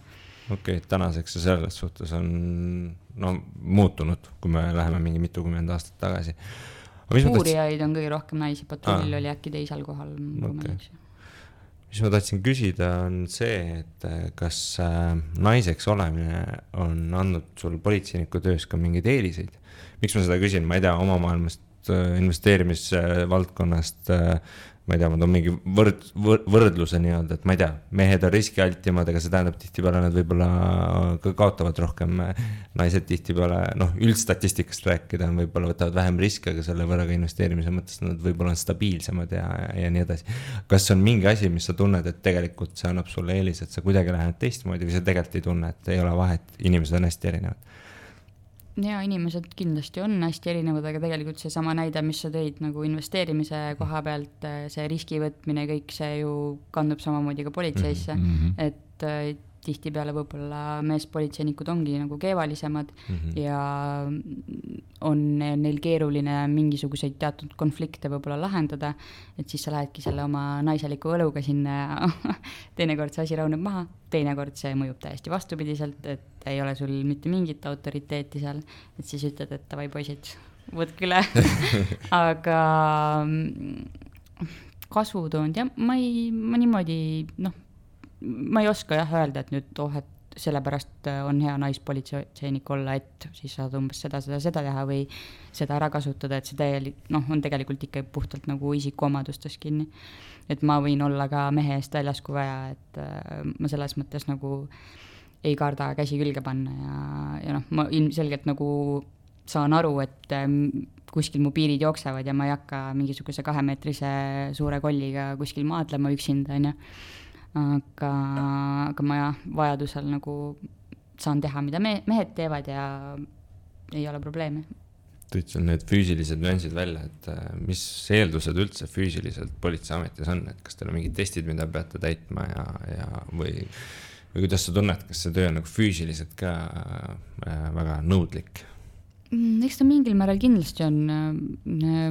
Okei, tänaseks ja selles suhtes on muutunud, kui me läheme mingi mitukümmend aastat tagasi. Uurijaid on kõige rohkem naisi, patrull oli äkki teisel kohal. Mis ma tahtsin küsida on see, et kas naiseks olemine on andnud sul politseiniku töös ka mingeid eeliseid? Miks ma seda küsin? Ma ei tea, oma maailmast investeerimisvaldkonnast, ma ei tea, ma toon mingi võrdluse nii-öelda, et ma ei tea, mehed on riskialtimad, aga see tähendab tihtipeale nad võib-olla ka kaotavad rohkem, naised tihtipeale, üldstatistikast rääkida, võib-olla võtavad vähem riske, aga selle võrra ka investeerimise mõttes nad võib-olla on stabiilsemad ja nii edasi. Kas on mingi asi, mis sa tunned, et tegelikult see annab sulle eelis, et sa kuidagi lähed teistmoodi või sa tegelikult ei tunne, et ei ole vahet, inimesed on hästi erinevad? Ja inimesed kindlasti on hästi erinevad, aga tegelikult see sama näide, mis sa tõid nagu investeerimise koha pealt, see riskivõtmine, kõik see ju kandub samamoodi ka politseisse, et tihtipeale võib-olla meespolitseinikud ongi nagu keevalisemad ja on neil keeruline mingisuguseid teatud konflikte võib-olla lahendada, et siis sa lähedki selle oma naiseliku õluga sinna ja teinekord see asi rauneb maha, teinekord see mõjub täiesti vastupidiselt, et ei ole sul mitte mingit autoriteeti seal, et siis ütled, et davai poisid, võtke üle. Aga kasvutoonud ja ma niimoodi, ma ei oska öelda, et nüüd et sellepärast on hea naispolitseinik olla, et siis saad umbes seda teha või seda ära kasutada, et see on tegelikult ikka puhtalt nagu isikuomadustes kinni. Et ma võin olla ka mehe eest väljas, kui vaja, et ma selles mõttes nagu ei karda käsi külge panna ja ma ilmselgelt nagu saan aru, et kuskil mu piirid jooksevad ja ma ei hakka mingisuguse 2-meetrise suure kolliga kuskil maadlema üksinda, aga ma vajadusel nagu saan teha, mida mehed teevad ja ei ole probleeme. Tõid sul need füüsilised nüansid välja, et mis eeldused üldse füüsiliselt politseiametis on, et kas teil on mingid testid, mida peate täitma või kuidas sa tunned, kas see töö on nagu füüsiliselt ka väga nõudlik? Eks ta mingil määral kindlasti on.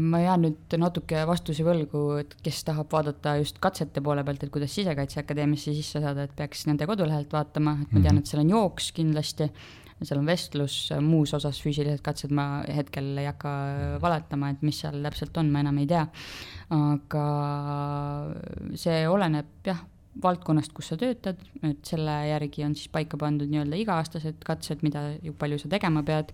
Ma jään nüüd natuke vastusi võlgu, et kes tahab vaadata just katsete poole pealt, et kuidas Sisekaitseakadeemiasse sisse saada, et peaks nende kodulehelt vaatama, et ma tean, et seal on jooks kindlasti, seal on vestlus, muus osas füüsilised katsed ma hetkel ei hakka valetama, et mis seal täpselt on, ma enam ei tea. Aga see oleneb valdkonnast, kus sa töötad, et selle järgi on siis paika pandud nii-öelda iga-aastased katsed, mida palju sa tegema pead.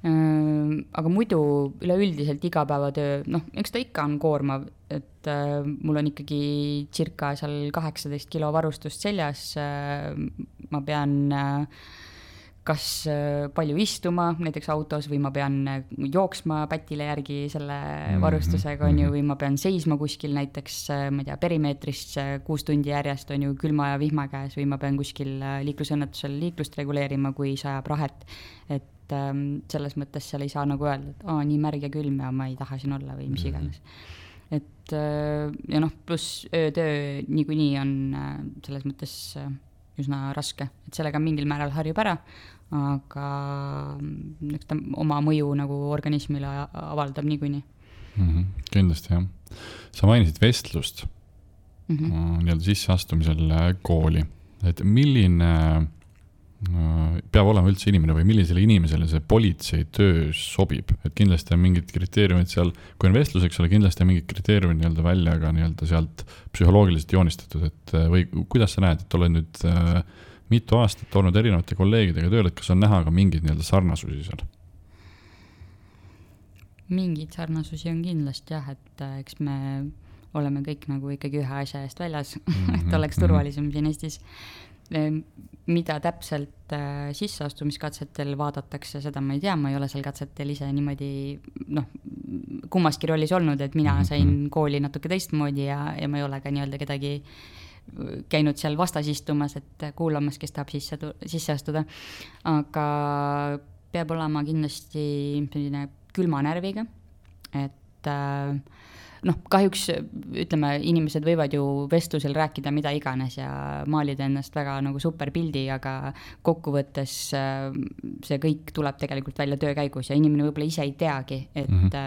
Aga muidu üleüldiselt igapäevatöö, eks ta ikka on koormav, et mul on ikkagi circa seal 18 kilo varustust seljas, ma pean kas palju istuma näiteks autos või ma pean jooksma pätile järgi selle varustusega või ma pean seisma kuskil näiteks, ma ei tea, perimeetris 6 tundi järjest on ju külma ja vihma käes või ma pean kuskil liiklusõnnetusel liiklust reguleerima, kui sajab rahet, et selles mõttes seal ei saa nagu öelda, et nii märg ja külm ja ma ei taha siin olla või mis iganes. Et ja pluss öötöö niikuinii on selles mõttes üsna raske, et sellega mingil määral harjub ära, aga eks ta oma mõju nagu organismile avaldab niikuinii. Kindlasti jah. Sa mainisid vestlust nii-öelda sisseastumisel kooli, et milline peab olema üldse inimene või millisele inimesele see politsei töö sobib, et kindlasti on mingid kriteeriumid seal, kui on vestluseks ole, kindlasti on mingid kriteeriumid nii-öelda välja ka nii-öelda sealt psühholoogiliselt joonistatud, et või kuidas sa näed, et oled nüüd mitu aastat olnud erinevate kolleegidega tööl, et kas on näha ka mingeid nii-öelda sarnasusi seal? Mingid sarnasusi on kindlasti et eks me oleme kõik nagu ikkagi ühe asja eest väljas, et oleks turvalisem siin Eestis. Mida täpselt sisseastumiskatsetel vaadatakse, seda ma ei tea, ma ei ole seal katsetel ise niimoodi kummaski rollis olnud, et mina sain kooli natuke teistmoodi ja ma ei ole ka nii-öelda kedagi käinud seal vastas istumas, et kuulamas, kes tahab sisse astuda, aga peab olema kindlasti selline külma närviga, et kahjuks ütleme, inimesed võivad ju vestlusel rääkida mida iganes ja maalida ennast väga nagu super pildi, aga kokkuvõttes see kõik tuleb tegelikult välja töö käigus ja inimene võib-olla ise ei teagi, et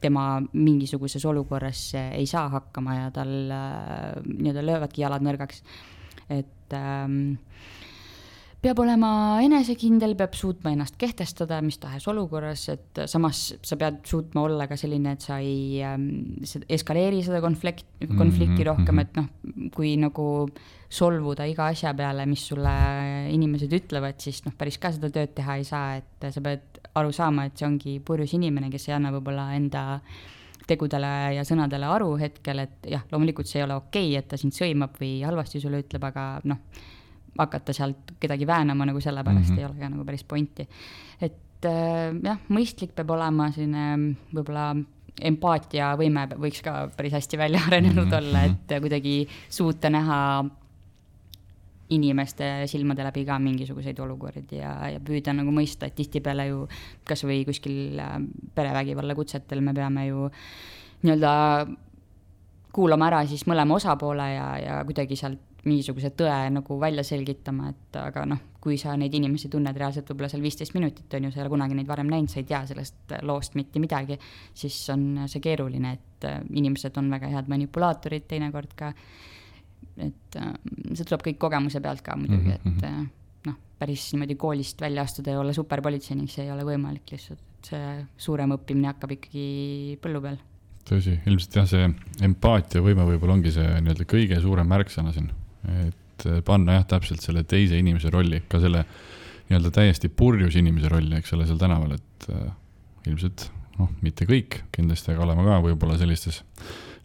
tema mingisuguses olukorras ei saa hakkama ja tal nii-öelda löövadki jalad nõrgaks. Et peab olema enesekindel, peab suutma ennast kehtestada mis tahes olukorras, et samas sa pead suutma olla ka selline, et sa ei eskaleeri seda konflikti rohkem, et noh, kui nagu solvuda iga asja peale, mis sulle inimesed ütlevad, siis noh, päris ka seda tööd teha ei saa, et sa pead aru saama, et see ongi purjus inimene, kes ei anna võib-olla enda tegudele ja sõnadele aru hetkel, et jah, loomulikult see ei ole okei, et ta sind sõimab või halvasti sulle ütleb, aga noh, hakata sealt kedagi väänama nagu sellepärast ei ole ka nagu päris pointi. Et jah, mõistlik peab olema selline võib-olla empaatia võime võiks ka päris hästi välja arenenud olla, et kuidagi suuta näha inimeste silmade läbi ka mingisuguseid olukordi ja püüda nagu mõista, et tihtipeale ju kas või kuskil perevägivalla kutsetel me peame ju nii-öelda kuulama ära siis mõlema osapoole ja kuidagi sealt mingisuguse tõe nagu välja selgitama, et aga noh, kui sa neid inimesi tunned reaalselt võib-olla seal 15 minutit on ju, sa ei ole kunagi neid varem näinud, sa ei tea sellest loost mitte midagi, siis on see keeruline, et inimesed on väga head manipulaatorid teinekord ka, et see tuleb kõik kogemuse pealt ka muidugi, et noh, päris niimoodi koolist välja astuda ja olla superpolitseinik, see ei ole võimalik lihtsalt, et see suurem õppimine hakkab ikkagi põllu peal. Tõsi, ilmselt jah, see empaatia võime võib-olla ongi see nii-öelda kõige suurem märksõna siin, et panna jah täpselt selle teise inimese rolli, ka selle nii-öelda täiesti purjus inimese rolli, eks ole, seal tänaval, et ilmselt noh, mitte kõik, kindlasti, aga oleme ka võib-olla sellistes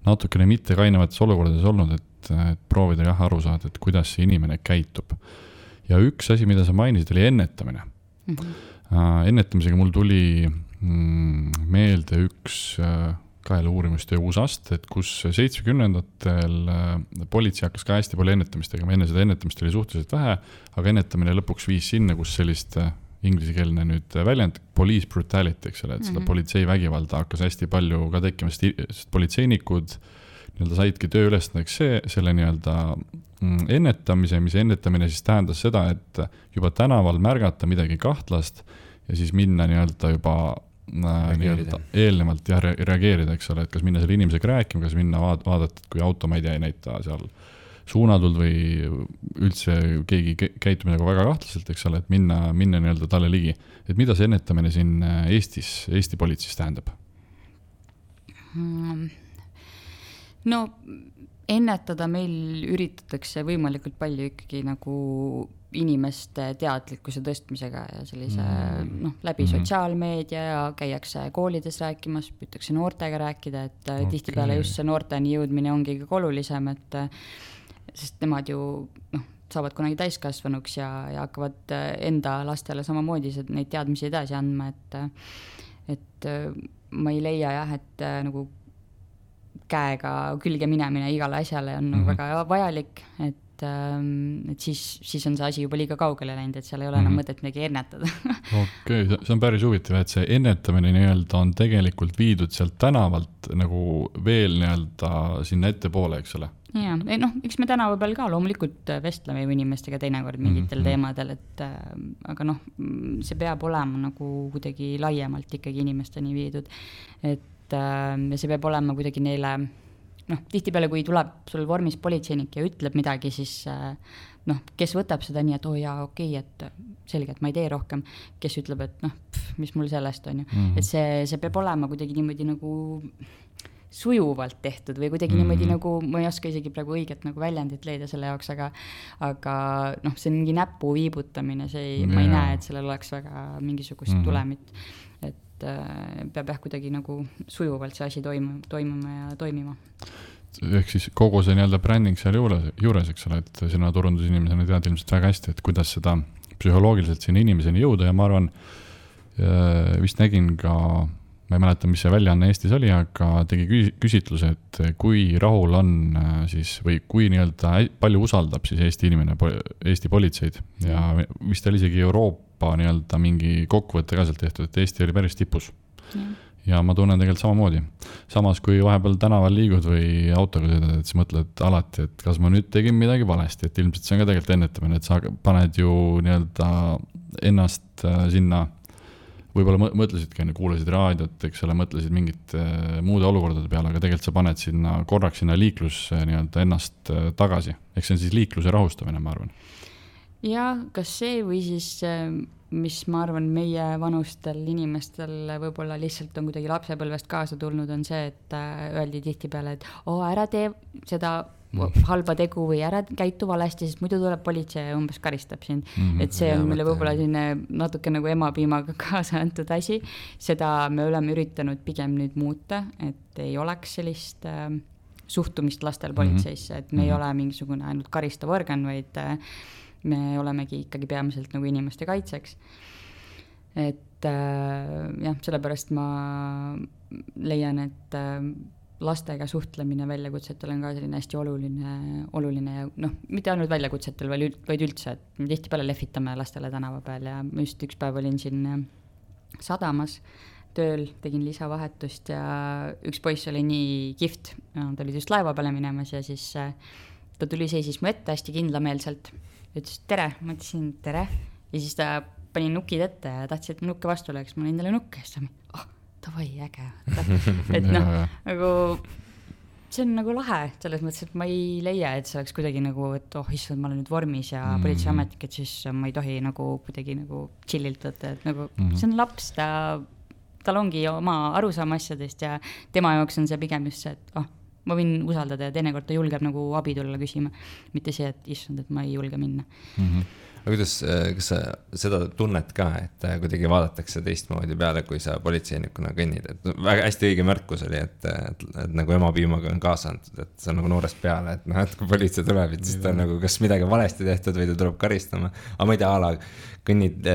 natukene mitte kainavates olukordades olnud, et proovida jah aru saada, et kuidas see inimene käitub. Ja üks asi, mida sa mainisid, oli ennetamine. Ennetamisega mul tuli meelde üks kaela uurimustöö uusast, et kus 70-ndatel politsei hakkas ka hästi palju ennetamist tegema, enne seda ennetamist oli suhteliselt vähe, aga ennetamine lõpuks viis sinna, kus sellist inglisekeelne nüüd väljend, police brutality, eks ole, et seda politsei vägivalda hakkas hästi palju ka tekkima, sest politseinikud nii-öelda saidki töö ülesandeks selle nii-öelda ennetamise, mis ennetamine siis tähendas seda, et juba tänaval märgata midagi kahtlast ja siis minna nii-öelda juba eelnevalt ja reageerida, eks ole, et kas minna selle inimesega rääkima, kas minna vaadata, kui auto, ma ei tea, ei näita seal suunatult või üldse keegi käitub nagu väga kahtlaselt, eks ole, et minna nii-öelda talle ligi. Et mida see ennetamine siin Eesti politseis tähendab? No ennetada meil üritatakse võimalikult palju ikkagi nagu inimeste teadlikkuse tõstmisega ja sellise läbi sotsiaalmeedia ja käiakse koolides rääkimas, püütakse noortega rääkida, et tihtipeale just see noorteni jõudmine ongi kõige olulisem, et sest nemad ju saavad kunagi täiskasvanuks ja hakkavad enda lastele samamoodi neid teadmisi edasi andma, et ma ei leia jah, et nagu käega külge minemine igale asjale on väga vajalik, et siis on see asi juba liiga kaugele läinud, et seal ei ole enam mõtet midagi ennetada. Okei, see on päris huvitav, et see ennetamine nii-öelda on tegelikult viidud sealt tänavalt nagu veel nii-öelda sinna ettepoole, eks ole? Jaa, eks me tänava peal ka loomulikult vestleme inimestega teinekord mingitel teemadel, et aga see peab olema nagu kuidagi laiemalt ikkagi inimesteni viidud, et see peab olema kuidagi neile tihtipeale, kui tuleb sul vormis politseinik ja ütleb midagi, siis kes võtab seda nii, et okei, et selge, et ma ei tee rohkem, kes ütleb, et mis mul sellest on ju. Et see peab olema kuidagi niimoodi nagu sujuvalt tehtud või kuidagi niimoodi nagu, ma ei oska isegi praegu õiget nagu väljendit leida selle jaoks, aga see on mingi näpu viibutamine, ma ei näe, et sellel oleks väga mingisugust tulemit, et peab kuidagi nagu sujuvalt see asi toimuma ja toimima. Ehk siis kogu see nii-öelda bränding seal juures, eks ole, et sina turundusinimesena tead ilmselt väga hästi, et kuidas seda psühholoogiliselt sinna inimeseni jõuda ja ma arvan, vist nägin ka, ma ei mäleta, mis see väljaanne Eestis oli, aga tegi küsitluse, et kui rahul on siis, või kui nii-öelda palju usaldab siis Eesti inimene, Eesti politseid ja vist oli isegi Euroopa nii-öelda mingi kokkuvõtte ka sealt tehtud, et Eesti oli päris tipus. Ja ma tunnen tegelikult samamoodi. Samas, kui vahepeal tänaval liigud või autoga sõidad, et sa mõtled alati, et kas ma nüüd tegin midagi valesti, et ilmselt see on ka tegelikult ennetamine, et sa paned ju nii-öelda ennast sinna, võib-olla mõtlesidki, kuulasid raadiot, eks ole, mõtlesid mingit muude olukordade peale, aga tegelikult sa paned sinna korraks sinna liiklus nii-öelda ennast tagasi. Eks see on siis liikluse rahustamine, ma arvan. ja kas see või siis, mis ma arvan, meie vanustel inimestel võib-olla lihtsalt on kuidagi lapsepõlvest kaasa tulnud, on see, et öeldi tihtipeale, et ära tee seda halba tegu või ära käitu valesti, sest muidu tuleb politsei ja umbes karistab sind. Et see on meile võib-olla selline natuke nagu emapiimaga kaasa antud asi. Seda me oleme üritanud pigem nüüd muuta, et ei oleks sellist suhtumist lastel politseisse, et me ei ole mingisugune ainult karistav organ, vaid me olemegi ikkagi peamiselt nagu inimeste kaitseks. Et jah, sellepärast ma leian, et lastega suhtlemine väljakutsetel on ka selline hästi oluline ja mitte ainult väljakutsetel, vaid üldse, et me tihtipeale lehvitame lastele tänava peal ja just üks päev olin siin sadamas tööl, tegin lisavahetust ja üks poiss oli nii kihvt, ta oli just laeva peale minemas ja siis ta tuli seisis mu ette hästi kindlameelselt, ütles tere, ma ütlesin tere ja siis ta pani nukid ette ja tahtsid, et ma nukke vastu oleks, ma olin talle nukke ja siis ta davai, äge. Et nagu see on nagu lahe selles mõttes, et ma ei leia, et see oleks kuidagi nagu, et issand, ma olen nüüd vormis ja politseiametnik, et siis ma ei tohi nagu kuidagi nagu chillilt võtta, et nagu see on laps, tal ongi oma arusaama asjadest ja tema jaoks on see pigem just see, et ma võin usaldada ja teinekord ta julgeb nagu abi tulla küsima, mitte see, et issand, et ma ei julge minna. Aga kuidas, kas sa seda tunnet ka, et kuidagi vaadatakse teistmoodi peale, kui sa politseinikuna kõnnid, et väga hästi õige märkus oli, et nagu emapiimaga on kaasa antud, et see on nagu noorest peale, et kui politsei tuleb, et siis ta on nagu kas midagi valesti tehtud või ta tuleb karistama, aga ma ei tea, kõnnid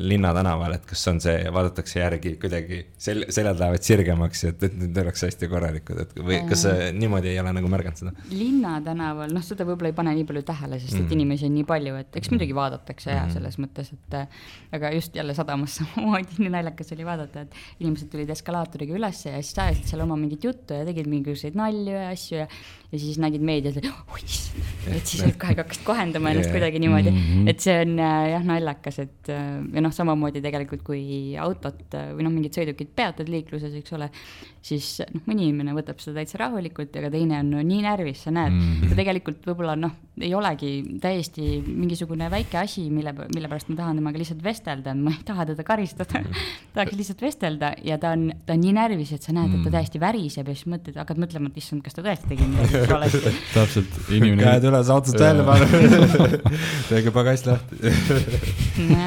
linna tänaval, et kas on see, vaadatakse järgi kuidagi, seljad lähevad sirgemaks, et nüüd oleks hästi korralikud, et või kas niimoodi ei ole nagu märganud seda? Linna tänaval, seda võib-olla ei pane nii palju tähele, sest et inimesi on nii palju, et eks muidugi vaadatakse ja selles mõttes, et aga just jälle sadamas samamoodi nii naljakas oli vaadata, et inimesed tulid eskalaatoriga üles ja siis ajasid seal oma mingit juttu ja tegid mingisuguseid nalju ja asju ja siis nägid meedias, et siis kohe hakkasid kohendama ennast kuidagi niimoodi, et see on jah naljakas, et ja samamoodi tegelikult kui autot või mingid sõidukid peatad liikluses, eks ole, siis mõni inimene võtab seda täitsa rahulikult, aga teine on nii närvis, sa näed, ta tegelikult võib-olla ei olegi täiesti mingisugune väike asi, mille pärast ma tahan temaga lihtsalt vestelda, ma ei taha teda karistada, tahaks lihtsalt vestelda ja ta on nii närvis, et sa näed, et ta täiesti väriseb ja siis hakkad mõtlema, et issand, kas ta tõesti tegi midagi valesti. Täpselt, inimene. Käed üles autost välja panna. Tege pagast lahti.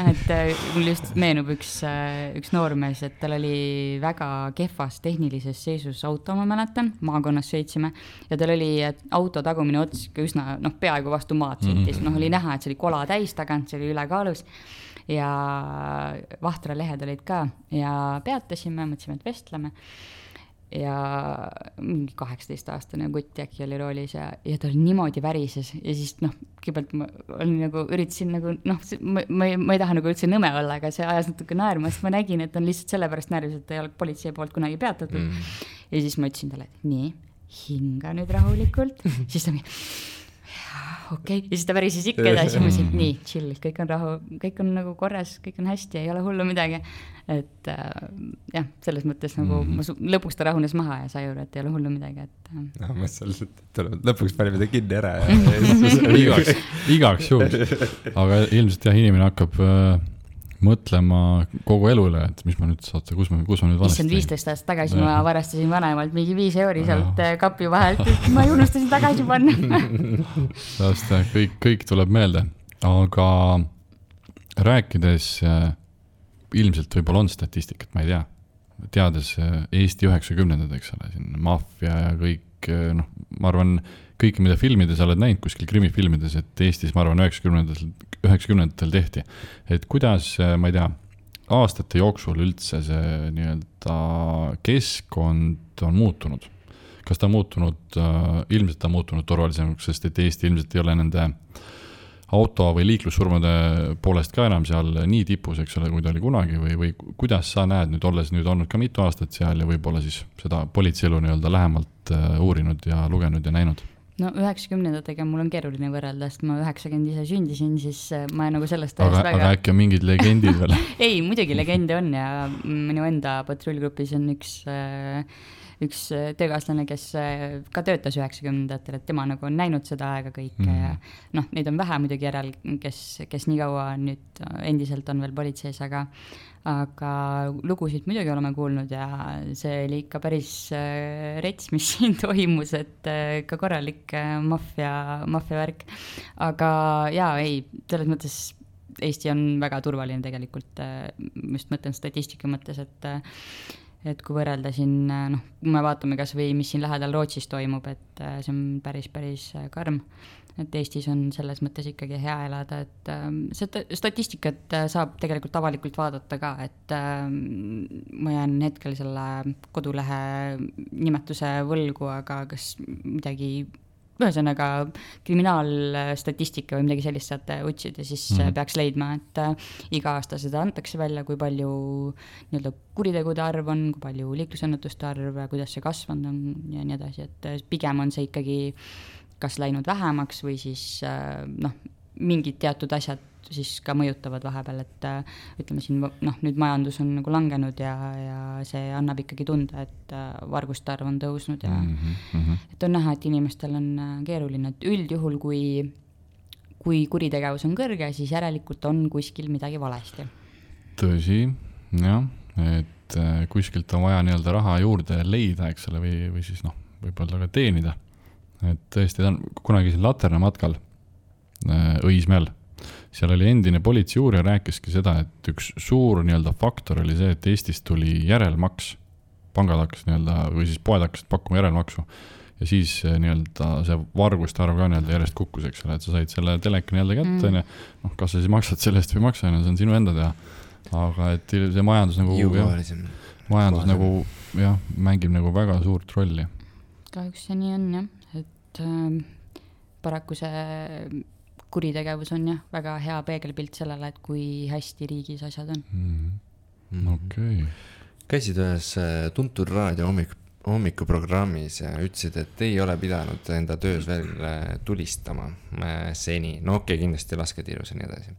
Et mul just meenub üks noormees, et tal oli väga kehvas tehnilises seisus auto, ma mäletan, maakonnas sõitsime ja tal oli auto tagumine ots üsna peaaegu vastu maad sõitis, oli näha, et see oli kola täis tagant, see oli ülekaalus ja vahtralehed olid ka ja peatasime, mõtlesime, et vestleme ja mingi 18-aastane kutt äkki oli roolis ja ta oli niimoodi värises ja siis kõigepealt ma üritasin ma ei taha nagu üldse nõme olla, aga see ajas natuke naerma, sest ma nägin, et on lihtsalt sellepärast närvis, et ta ei ole politsei poolt kunagi peatatud ja siis ma ütlesin talle, et nii, hinga nüüd rahulikult, siis ta okei. Ja siis ta pärises ikka edasi, ma ütlesin, nii, chill, kõik on rahu, kõik on nagu korras, kõik on hästi, ei ole hullu midagi. Et jah, selles mõttes nagu lõpuks ta rahunes maha ja sai juurde, et ei ole hullu midagi. Ma mõtlesin, lõpuks panime ta kinni ära. Igaks juhul. Aga ilmselt jah, inimene hakkab mõtlema kogu elule, et mis ma nüüd saate, kus ma nüüd valesti. 15 aastat tagasi ma varastasin vanemalt mingi 5 euri sealt kapi vahelt, et ma ei unustasin tagasi panna. kõik tuleb meelde, aga rääkides ilmselt võib-olla on statistikat, ma ei tea, teades Eesti 90-ndad, eks ole, siin maffia ja kõik, ma arvan, kõik, mida filmides oled näinud kuskil krimifilmides, et Eestis, ma arvan, 90-ndatel tehti. Et kuidas, ma ei tea, aastate jooksul üldse see nii-öelda keskkond on muutunud? Kas ta on muutunud, ilmselt ta on muutunud turvalisemaks, sest et Eesti ilmselt ei ole nende auto või liiklussurmade poolest ka enam seal nii tipus, eks ole, kui ta oli kunagi või kuidas sa näed nüüd, olles nüüd olnud ka mitu aastat seal ja võib-olla siis seda politseielu nii-öelda lähemalt uurinud ja lugenud ja näinud? 90-ndatega mul on keeruline võrrelda, sest ma 90 ise sündisin, siis ma nagu sellest aga äkki on mingid legendid veel? Ei, muidugi legende on ja minu enda patrullgrupis on üks üks töökaaslane, kes ka töötas 90-ndatel, et tema nagu on näinud seda aega kõike ja noh, neid on vähe muidugi järel, kes nii kaua nüüd endiselt on veel politseis, aga lugusid muidugi oleme kuulnud ja see oli ikka päris rets, mis siin toimus, et ka korralik maffia värk. Aga jaa, ei, selles mõttes Eesti on väga turvaline tegelikult, just mõtlen statistika mõttes, et kui võrrelda siin, noh, kui me vaatame kas või, mis siin lähedal Rootsis toimub, et see on päris karm, et Eestis on selles mõttes ikkagi hea elada, et seda statistikat saab tegelikult avalikult vaadata ka, et ma jään hetkel selle kodulehe nimetuse võlgu, aga kas midagi ühesõnaga kriminaalstatistika või midagi sellist saate otsida, siis peaks leidma, et iga aasta seda antakse välja, kui palju nii-öelda kuritegude arv on, kui palju liiklusõnnetuste arv, kuidas see kasvanud on ja nii edasi, et pigem on see ikkagi kas läinud vähemaks või siis mingid teatud asjad siis ka mõjutavad vahepeal, et ütleme siin, nüüd majandus on nagu langenud ja see annab ikkagi tunda, et varguste arv on tõusnud ja et on näha, et inimestel on keeruline, et üldjuhul, kui kuritegevus on kõrge, siis järelikult on kuskil midagi valesti. Tõsi, jah, et kuskilt on vaja nii-öelda raha juurde leida, eks ole, või siis võib-olla ka teenida. Et tõesti, ta on kunagi siin Laterna matkal Õismäel. Seal oli endine politseiuurija rääkiski seda, et üks suur nii-öelda faktor oli see, et Eestis tuli järelmaks. Pangad hakkas nii-öelda, või siis poed hakkasid pakkuma järelmaksu. Ja siis nii-öelda see varguste arv ka nii-öelda järjest kukkus, eks ole, et sa said selle teleka nii-öelda kätte. Kas sa siis maksad sellest või maksa, see on sinu enda teha. Aga et see majandus nagu mängib nagu väga suurt rolli. Kahjuks see nii on, jah. Et paraku see kuritegevus on jah väga hea peegelpilt sellele, et kui hästi riigis asjad on. Okei. Käisid ühes tuntud raadio hommikuprogrammis ja ütlesid, et ei ole pidanud enda töös veel tulistama seni. No okei, kindlasti lasketiirus ja nii edasi.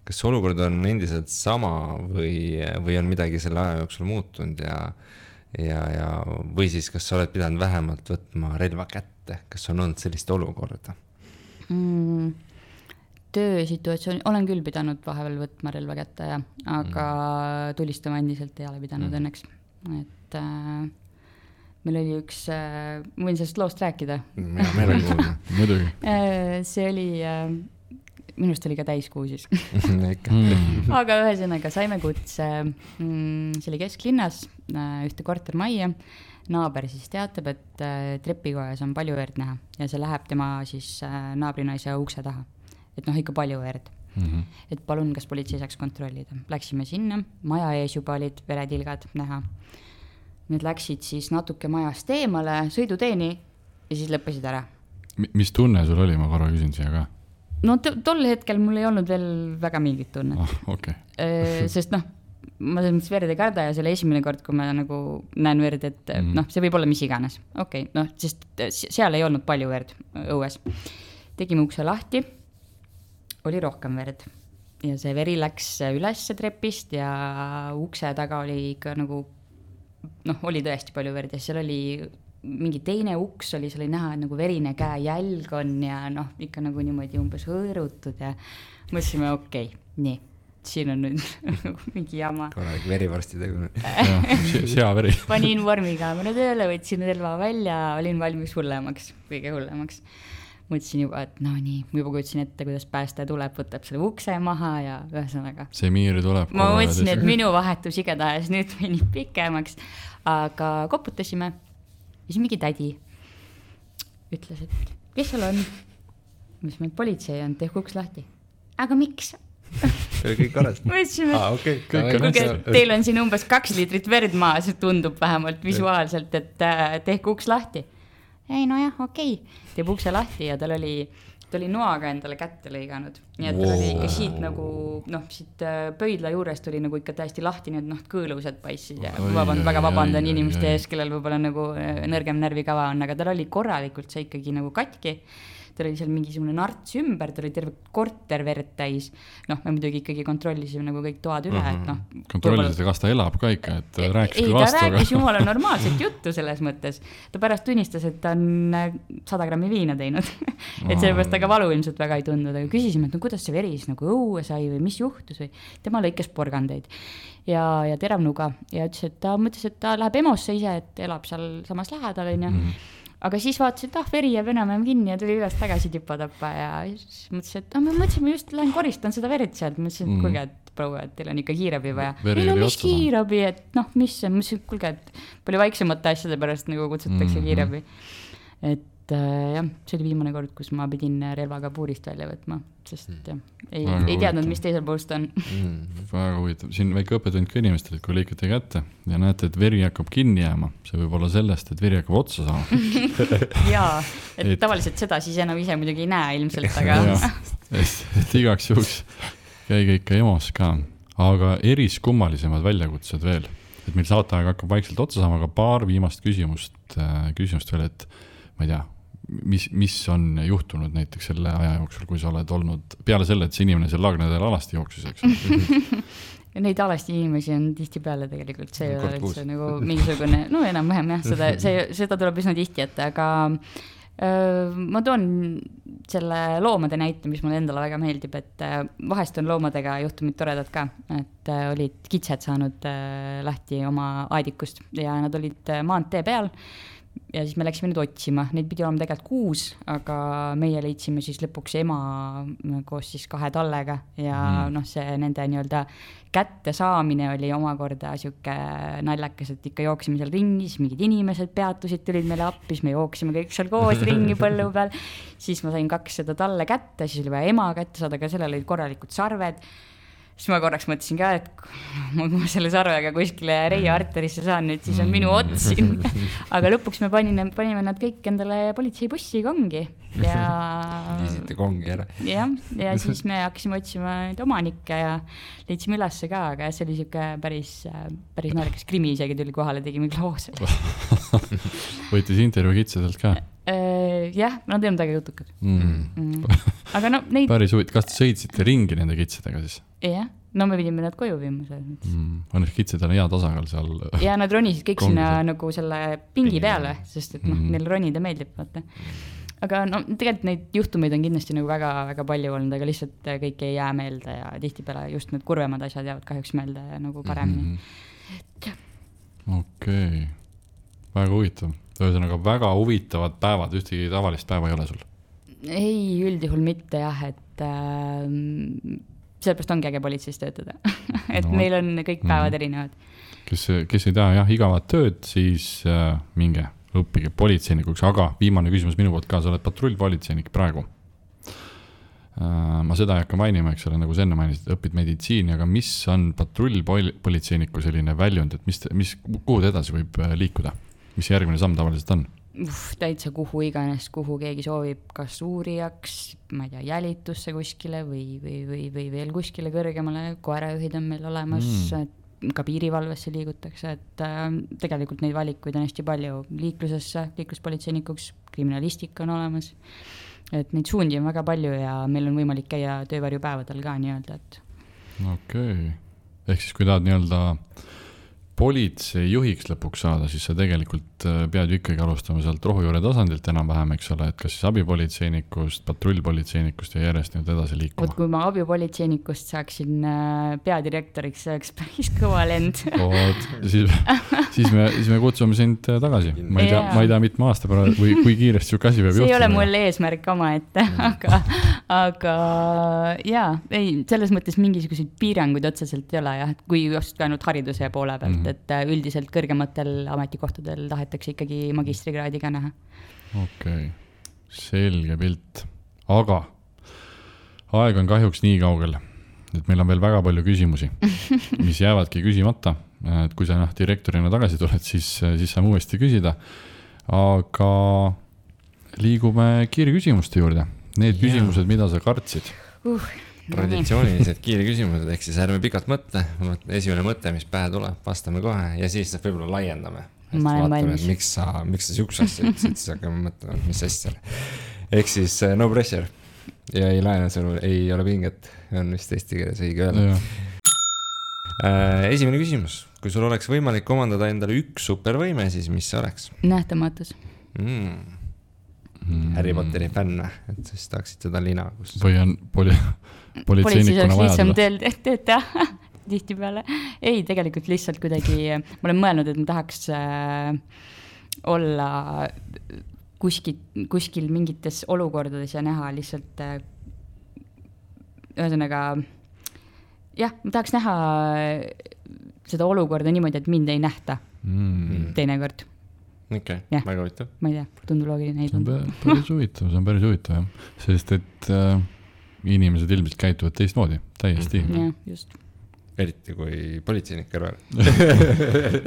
Kas olukord on endiselt sama või on midagi selle aja jooksul muutunud ja või siis kas sa oled pidanud vähemalt võtma relva kätte? Kas on olnud sellist olukorda? Töösituatsioon, olen küll pidanud vahepeal võtma relva kätte, aga tulistama endiselt ei ole pidanud õnneks. Et meil oli üks, võin sellest loost rääkida? Meil on kuulda. Muidugi. See oli, minust oli ka täiskuu siis. Aga ühesõnaga saime kutse, see oli kesklinnas, ühte kortermajja. Naaber siis teatab, et trepikojas on palju verd näha ja see läheb tema siis naabrinaise ukse taha. Et ikka palju verd. Et palun, kas politsei saaks kontrollida. Läksime sinna, maja ees juba olid veretilgad näha. Need läksid siis natuke majast eemale, sõiduteeni ja siis lõppesid ära. Mis tunne sul oli, ma korra küsin siia ka? No tol hetkel mul ei olnud veel väga mingit tunnet. Okay. Sest ma selles mõttes verd ei karda ja selle esimene kord, kui ma nagu näen verd, et see võib olla mis iganes. Okei, sest seal ei olnud palju verd õues. Tegime ukse lahti. Oli rohkem verd ja see veri läks üles trepist ja ukse taga oli ikka nagu, oli tõesti palju verd ja seal oli mingi teine uks oli, see oli näha, et nagu verine käe jälg on ja ikka nagu niimoodi umbes hõõrutud ja mõtlesime, okei, nii, siin on nüüd mingi jama. Korralik verivorsti tegu. Seaveri. Panin vormikaamera tööle, võtsin relva välja, olin valmis hullemaks, kõige hullemaks. Mõtlesin juba, et nii, juba kutsin ette, kuidas päästa tuleb, võtab selle ukse maha ja ühesõnaga. See miir tuleb. Ma mõtlesin, et minu vahetus igatahes nüüd venib pikemaks, aga koputasime ja siis mingi tädi ütles, et kes seal on? Mis meil politsei on, tehku uks lahti. Aga miks? Kõik korras. Mõtlesime, teil on siin umbes 2 liitrit verd maas, tundub vähemalt visuaalselt, et tehku uks lahti. Ei, jah, okei. Teeb ukse lahti ja tal oli noaga endale kätte lõiganud. Nii et tal oli ikka siit nagu, siit pöidla juurest oli nagu ikka täiesti lahti, nii et kõõlused paissid ja väga vabandan inimeste ees, kellel võib-olla nagu nõrgem närvikava on, aga tal oli korralikult see ikkagi nagu katki. ta oli seal mingisugune narts ümber, ta oli terve korter verd täis. Noh, me muidugi ikkagi kontrollisime nagu kõik toad üle, et noh. Kontrollisite, kas ta elab ka ikka, et rääkis küll vastu. Ei, ta rääkis jumala normaalset juttu selles mõttes. Ta pärast tunnistas, et ta on 100 grammi viina teinud. Et sellepärast ta ka valu ilmselt väga ei tundnud, aga küsisime, et no kuidas see veris nagu õue sai või mis juhtus või tema lõikes porgandeid ja teravnuga ja ütles, et ta mõtles, et ta läheb EMO-sse ise, et elab seal samas lähedal, on ju. Aga siis vaatasin, et veri jääb enam kinni ja tuli üles tagasi tipatappa ja siis mõtlesin, et me mõtlesime just, lähen koristan seda verd sealt. Mõtlesin, et kuulge, et proua, et teil on ikka kiirabi vaja. Ei no mis kiirabi, et noh, mis see, mõtlesin, et kuulge, et palju vaiksemate asjade pärast nagu kutsutakse kiirabi. Et jah, see oli viimane kord, kus ma pidin relvaga puurist välja võtma, sest ei teadnud, mis teisel poolst on. Väga huvitav. Siin väike õppetund ka inimestel, et kui lõikate kätte ja näete, et veri hakkab kinni jääma, see võib olla sellest, et veri hakkab otsa saama. Jaa, et tavaliselt seda siis enam ise muidugi ei näe ilmselt, aga... et igaks juhuks käige ikka EMO-s ka, aga eriskummalisemad väljakutsed veel. Et meil saateaeg hakkab vaikselt otsa saama, aga paar viimast küsimust veel, et ma ei tea, mis on juhtunud näiteks selle aja jooksul, kui sa oled olnud peale selle, et see inimene seal Laagnedel alasti jooksus, eks? Neid alasti inimesi on tihti peale tegelikult, see ei ole üldse nagu mingisugune, no enam-vähem jah, seda tuleb üsna tihti, et aga ma toon selle loomade näite, mis mulle endale väga meeldib, et vahest on loomadega juhtumid toredad ka, et olid kitsed saanud lahti oma aedikust ja nad olid maantee peal ja siis me läksime nüüd otsima, neid pidi olema tegelikult 6, aga meie leidsime siis lõpuks ema koos siis 2 tallega ja noh, see nende nii-öelda kätte saamine oli omakorda siuke naljakas, et ikka jooksime seal ringi, siis mingid inimesed peatusid, tulid meile appi, siis me jooksime kõik seal koos ringi põllu peal, siis ma sain 2 seda talle kätte, siis oli vaja ema kätte saada, aga sellel olid korralikud sarved. Siis ma korraks mõtlesin ka, et kui ma selle sarvega kuskile Reia arterisse saan nüüd, siis on minu ots siin. Aga lõpuks me panime nad kõik endale politseibussi kongi. Liisite kongi ära. Ja siis me hakkasime otsima neid omanikke ja leidsime ülesse ka, aga see oli siuke päris naljakas krimi isegi tuli kohale, tegime kloose. Võitis intervjuu kitsedelt ka? Jah, nad ei olnud väga jutukad. Aga no neid... Päris huvitav, kas te sõitsite ringi nende kitsedega siis? Jah, no me pidime nad koju viima. Õnneks kitsedel on hea tasakaal seal. Ja nad ronisid kõik sinna nagu selle pingi peale, sest et neil ronida meeldib. Vaata. Aga no, tegelikult neid juhtumeid on kindlasti nagu väga palju olnud, aga lihtsalt kõik ei jää meelde ja tihtipeale just need kurvemad asjad jäävad kahjuks meelde nagu paremini. Okei. Väga huvitav. Ühesõnaga väga huvitavad päevad, ühtegi tavalist päeva ei ole sul? Ei, üldjuhul mitte jah, et sellepärast ongi äge politseis töötada. Et meil on kõik päevad erinevad. Kes ei taha jah, igavat tööd, siis minge õppige politseinikuks, aga viimane küsimus minu poolt ka, sa oled patrullpolitseinik praegu. Ma seda ei hakka mainima, eks ole, nagu sa enne mainisid, õpid meditsiini, aga mis on patrullpolitseiniku selline väljund, et kuhu edasi võib liikuda? Mis järgmine samm tavaliselt on? Täitsa kuhu iganes, kuhu keegi soovib, kas uurijaks, ma ei tea, jälitusse kuskile või veel kuskile kõrgemale, koerajuhid on meil olemas, ka piirivalvesse liigutakse, et tegelikult neid valikuid on hästi palju liiklusesse, liikluspolitseinikuks, kriminalistika on olemas, et neid suundi on väga palju ja meil on võimalik käia töövarjupäevadel ka nii-öelda, et... Okei. Ehk siis kui tahad nii-öelda politsei juhiks lõpuks saada, siis sa tegelikult pead ju ikkagi alustama sealt rohujuure tasandilt enam-vähem, eks ole, et kas siis abipolitseinikust, patrullpolitseinikust ja järjest nüüd edasi liikuma. Kui ma abipolitseinikust saaksin peadirektoriks, see oleks päris kõva lend. Siis me kutsume sind tagasi. Ma ei tea mitme aasta pärast või kui kiiresti siuke asi peab juhtuma. See ei ole mul eesmärk oma ette, aga jaa, ei, selles mõttes mingisuguseid piiranguid otseselt ei ole, jah, kui just ka ainult hariduse poole pealt, et üldiselt kõrgematel ametikohtadel tahetakse ikkagi magistrikraadiga näha. Okei, selge pilt. Aga aeg on kahjuks nii kaugel, et meil on veel väga palju küsimusi, mis jäävadki küsimata. Et kui sa direktorina tagasi tuled, siis saame uuesti küsida. Aga liigume kiirküsimuste juurde. Need küsimused, mida sa kartsid. Traditsioonilised kiirküsimused, ehk siis ärme pikalt mõtle. Esimene mõte, mis pähe tuleb, vastame kohe ja siis võib-olla laiendame. Ma olen valmis. Miks sa siukse asja ütlesid, siis hakkame mõtlema, mis asja. ehk siis no pressure ja ei laena sul, ei ole pinget, on vist eesti keeles õige öelda. Esimene küsimus, kui sul oleks võimalik omandada endale üks supervõime, siis mis see oleks? Nähtamatus. Harry Potteri fänn, et siis tahaksid seda lina, kus või on politseinikuna vaja lihtsam tööd teha tihti peale. Ei, tegelikult lihtsalt kuidagi, ma olen mõelnud, et ma tahaks olla kuskil mingites olukordades ja näha lihtsalt ühesõnaga jah, ma tahaks näha seda olukorda niimoodi, et mind ei nähta teinekord. Okei, väga huvitav. Ma ei tea, tundub loogiline. See on päris huvitav, jah. Sest et inimesed ilmselt käituvad teistmoodi, täiesti. Jah, just. Eriti kui politseinik kõrval.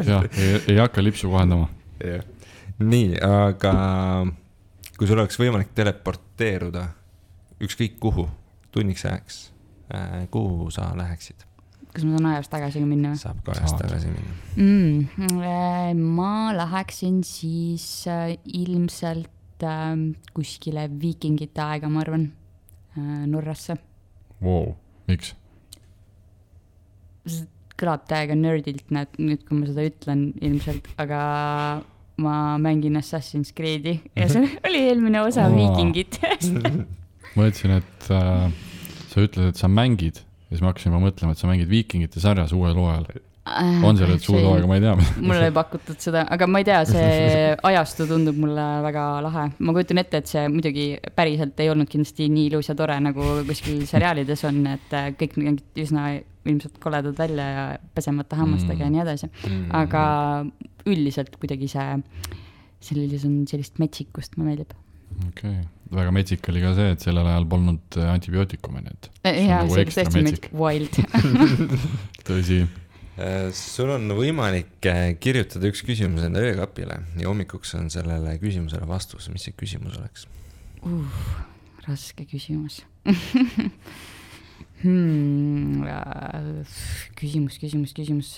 Jah, ei hakka lipsu kohendama. Nii, aga kui sul oleks võimalik teleporteeruda ükskõik kuhu, tunniks ajaks, kuhu sa läheksid? Kas ma saan ajast tagasi minna? Saab ka ajast tagasi minna. Ma läheksin siis ilmselt kuskile viikingite aega, ma arvan, Norrasse. Wow, miks? See kõlab täiega nerdilt nüüd, kui ma seda ütlen ilmselt, aga ma mängin Assassin's Creed'i ja see oli eelmine osa viikingit. Ma ütlesin, et sa ütled, et sa mängid ja siis ma hakkasin mõtlema, et sa mängid viikingite sarjas uuel hooajal. On see nüüd suud hooaega, ma ei tea. Mulle ei pakutud seda, aga ma ei tea, see ajastu tundub mulle väga lahe. Ma kujutan ette, et see muidugi päriselt ei olnud kindlasti nii ilus ja tore, nagu kuskil seriaalides on, et kõik üsna ilmselt koledad välja ja pesemata hammastega ja nii edasi. Aga üldiselt kuidagi sellises on sellist metsikust, ma meeldib. Okei. Väga metsik oli ka see, et sellel ajal polnud antibiootikume, nii et jaa, see tõesti metsik. Wild. Tõsi. Sul on võimalik kirjutada üks küsimus enda öökapile ja hommikuks on sellele küsimusele vastus. Mis see küsimus oleks? Raske küsimus. Küsimus.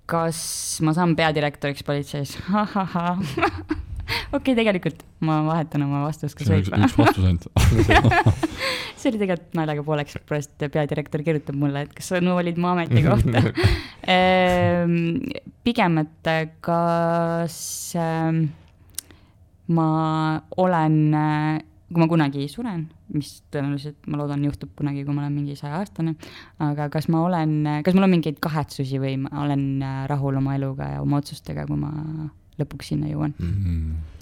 Kas ma saan peadirektoriks politseis? Okei, tegelikult ma vahetan oma vastust. See on üks vastus ainult. See oli tegelikult naljaga pooleks, et peadirektor kirjutab mulle, et kas sa olid mu ameti kohta. Pigem, et kas ma olen, kui ma kunagi suren, mis tõenäoliselt ma loodan juhtub kunagi, kui ma olen mingi 100-aastane, aga kas mul on mingeid kahetsusi või ma olen rahul oma eluga ja oma otsustega, kui ma lõpuks sinna jõuan.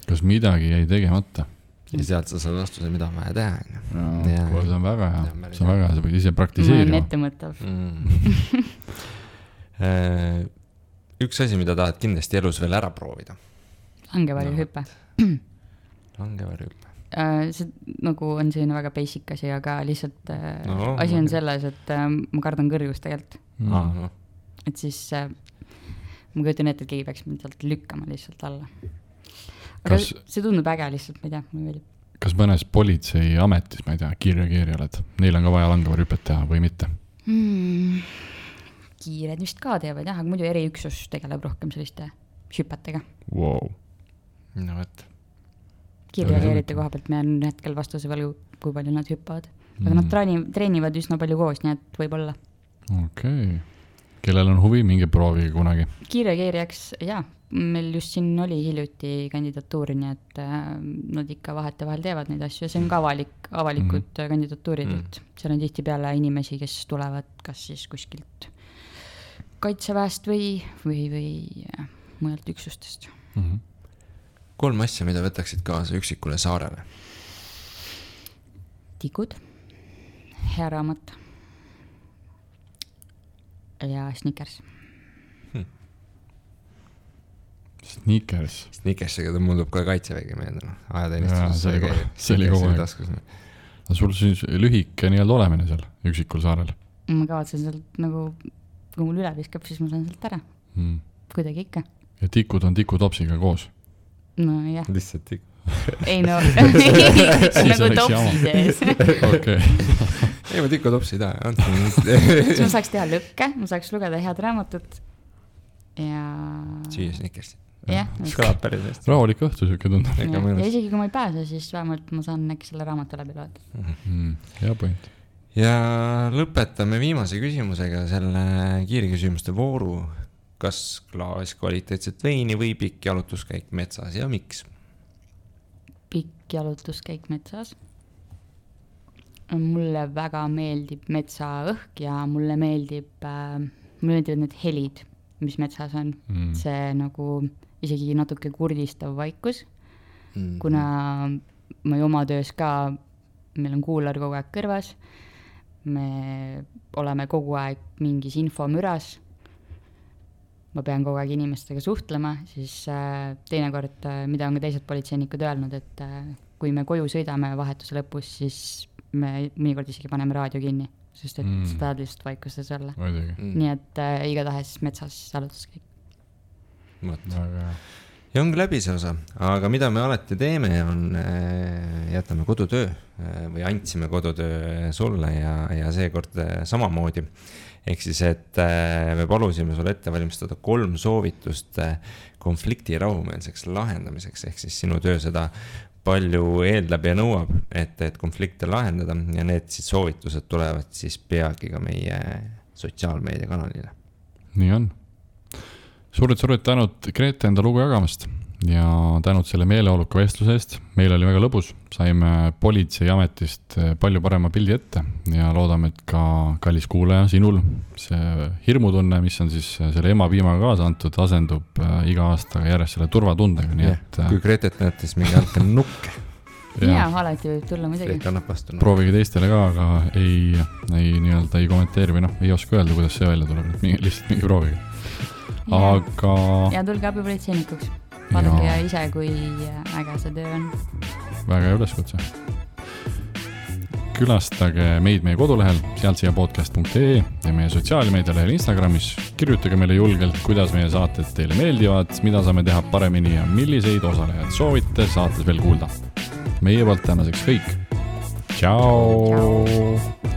Kas midagi jäi tegemata? Ja sealt sa saad vastuse, mida on vaja teha. See on väga hea. See on väga hea, sa võid ise praktiseerima. Ma olen ettemõttav. Üks asi, mida tahad kindlasti elus veel ära proovida? Langevarjuhüpe. Langevarjuhüpe. See nagu on selline väga basic asi, aga lihtsalt asi on selles, et ma kardan kõrgust tegelikult. Et siis ma kujutan ette, et keegi peaks mind sealt lükkama lihtsalt alla. Aga see tundub äge lihtsalt, ma ei tea, mulle meeldib. Kas mõnes politsei ametis, ma ei tea, kiirreageerija oled, neil on ka vaja langevarjuhüpet teha või mitte? Kiired vist ka teevad, jah, aga muidu eriüksus tegeleb rohkem selliste hüpetega. Wow. No võt. Kiirreageerite koha pealt me on hetkel vastuse veel, kui palju nad hüppavad. Aga nad treenivad üsna palju koos, nii et võib olla. Okei. Kellel on huvi, mingi proovige kunagi? Kiirreageerijaks, jah, meil just siin oli hiljuti kandidatuuri, nii et nad ikka vahet vahel teevad neid asju ja see on ka avalikud kandidatuurid, et seal on tihti peale inimesi, kes tulevad kas siis kuskilt kaitseväest või mujalt üksustest. 3 asja, mida võtaksid kaasa üksikule saarele? Tikud, hea raamat ja Snickers. Snickersiga ta muudub ka kaitsevägi meelde. See oli kogu aeg. Sul siis lühike nii-öelda olemine seal üksikul saarel? Ma kavatsen sealt nagu, kui mul üle viskab, siis ma saan sealt ära. Kuidagi ikka. Ja tikud on tikutopsiga koos? No jah. Lihtsalt tik. Ei no, nagu topsi sees. Okei. Ei, ma tikutopsi ei taha. Siis ma saaks teha lõkke, ma saaks lugeda head raamatut ja... Süüa Snickersit. jah, kõlab päris hästi. Rahulik õhtu siuke tundub. ja isegi kui ma ei pääse, siis vähemalt ma saan äkki selle raamatu läbi loeta. Hea point. Ja lõpetame viimase küsimusega selle kiirküsimuste vooru. Kas klaas kvaliteetset veini või pikk jalutuskäik metsas ja miks? Pikk jalutuskäik metsas. Mulle väga meeldib metsaõhk ja mulle meeldivad need helid, mis metsas on. See nagu isegi natuke kurdistav vaikus, kuna ma oma töös ka, meil on kuular kogu aeg kõrvas, me oleme kogu aeg mingis infomüras, ma pean kogu aeg inimestega suhtlema, siis teinekord, mida on ka teised politseinikud öelnud, et kui me koju sõidame vahetuse lõpus, siis me mõnikord isegi paneme raadio kinni, sest et sa tahad lihtsalt vaikustes olla. Nii et igatahes metsas jalutuskäik. Ja ongi läbi see osa, aga mida me alati teeme, on jätame kodutöö või andsime kodutöö sulle ja seekord samamoodi. Ehk siis, et me palusime sul ette valmistada 3 soovitust konflikti rahumeelseks lahendamiseks, ehk siis sinu töö seda palju eeldab ja nõuab, et konflikte lahendada ja need siis soovitused tulevad siis peagi ka meie sotsiaalmeediakanalile. Nii on. Suured tänud Grete enda lugu jagamast ja tänud selle meeleoluka vestluse eest. Meil oli väga lõbus, saime politseiametist palju parema pildi ette ja loodame, et ka kallis kuulaja sinul see hirmutunne, mis on siis selle emapiimaga kaasa antud, asendub iga aasta järjest selle turvatundega. Nii et, kui Gretet näete, siis mingi andke nukke. Ja, alati võib tulla muidugi. Proovige teistele ka, aga ei kommenteeri või ei oska öelda, kuidas see välja tuleb. Lihtsalt mingi proovige. Aga... Ja tulge abipolitseinikuks. Vaadake ise, kui äge see töö on. Väga hea üleskutse. Külastage meid meie kodulehel sealtsiapodcast.ee ja meie sotsiaalmeedialehel Instagramis. Kirjutage meile julgelt, kuidas meie saated teile meeldivad, mida saame teha paremini ja milliseid osalejad soovite saates veel kuulda. Meie poolt tänaseks kõik. Ciao!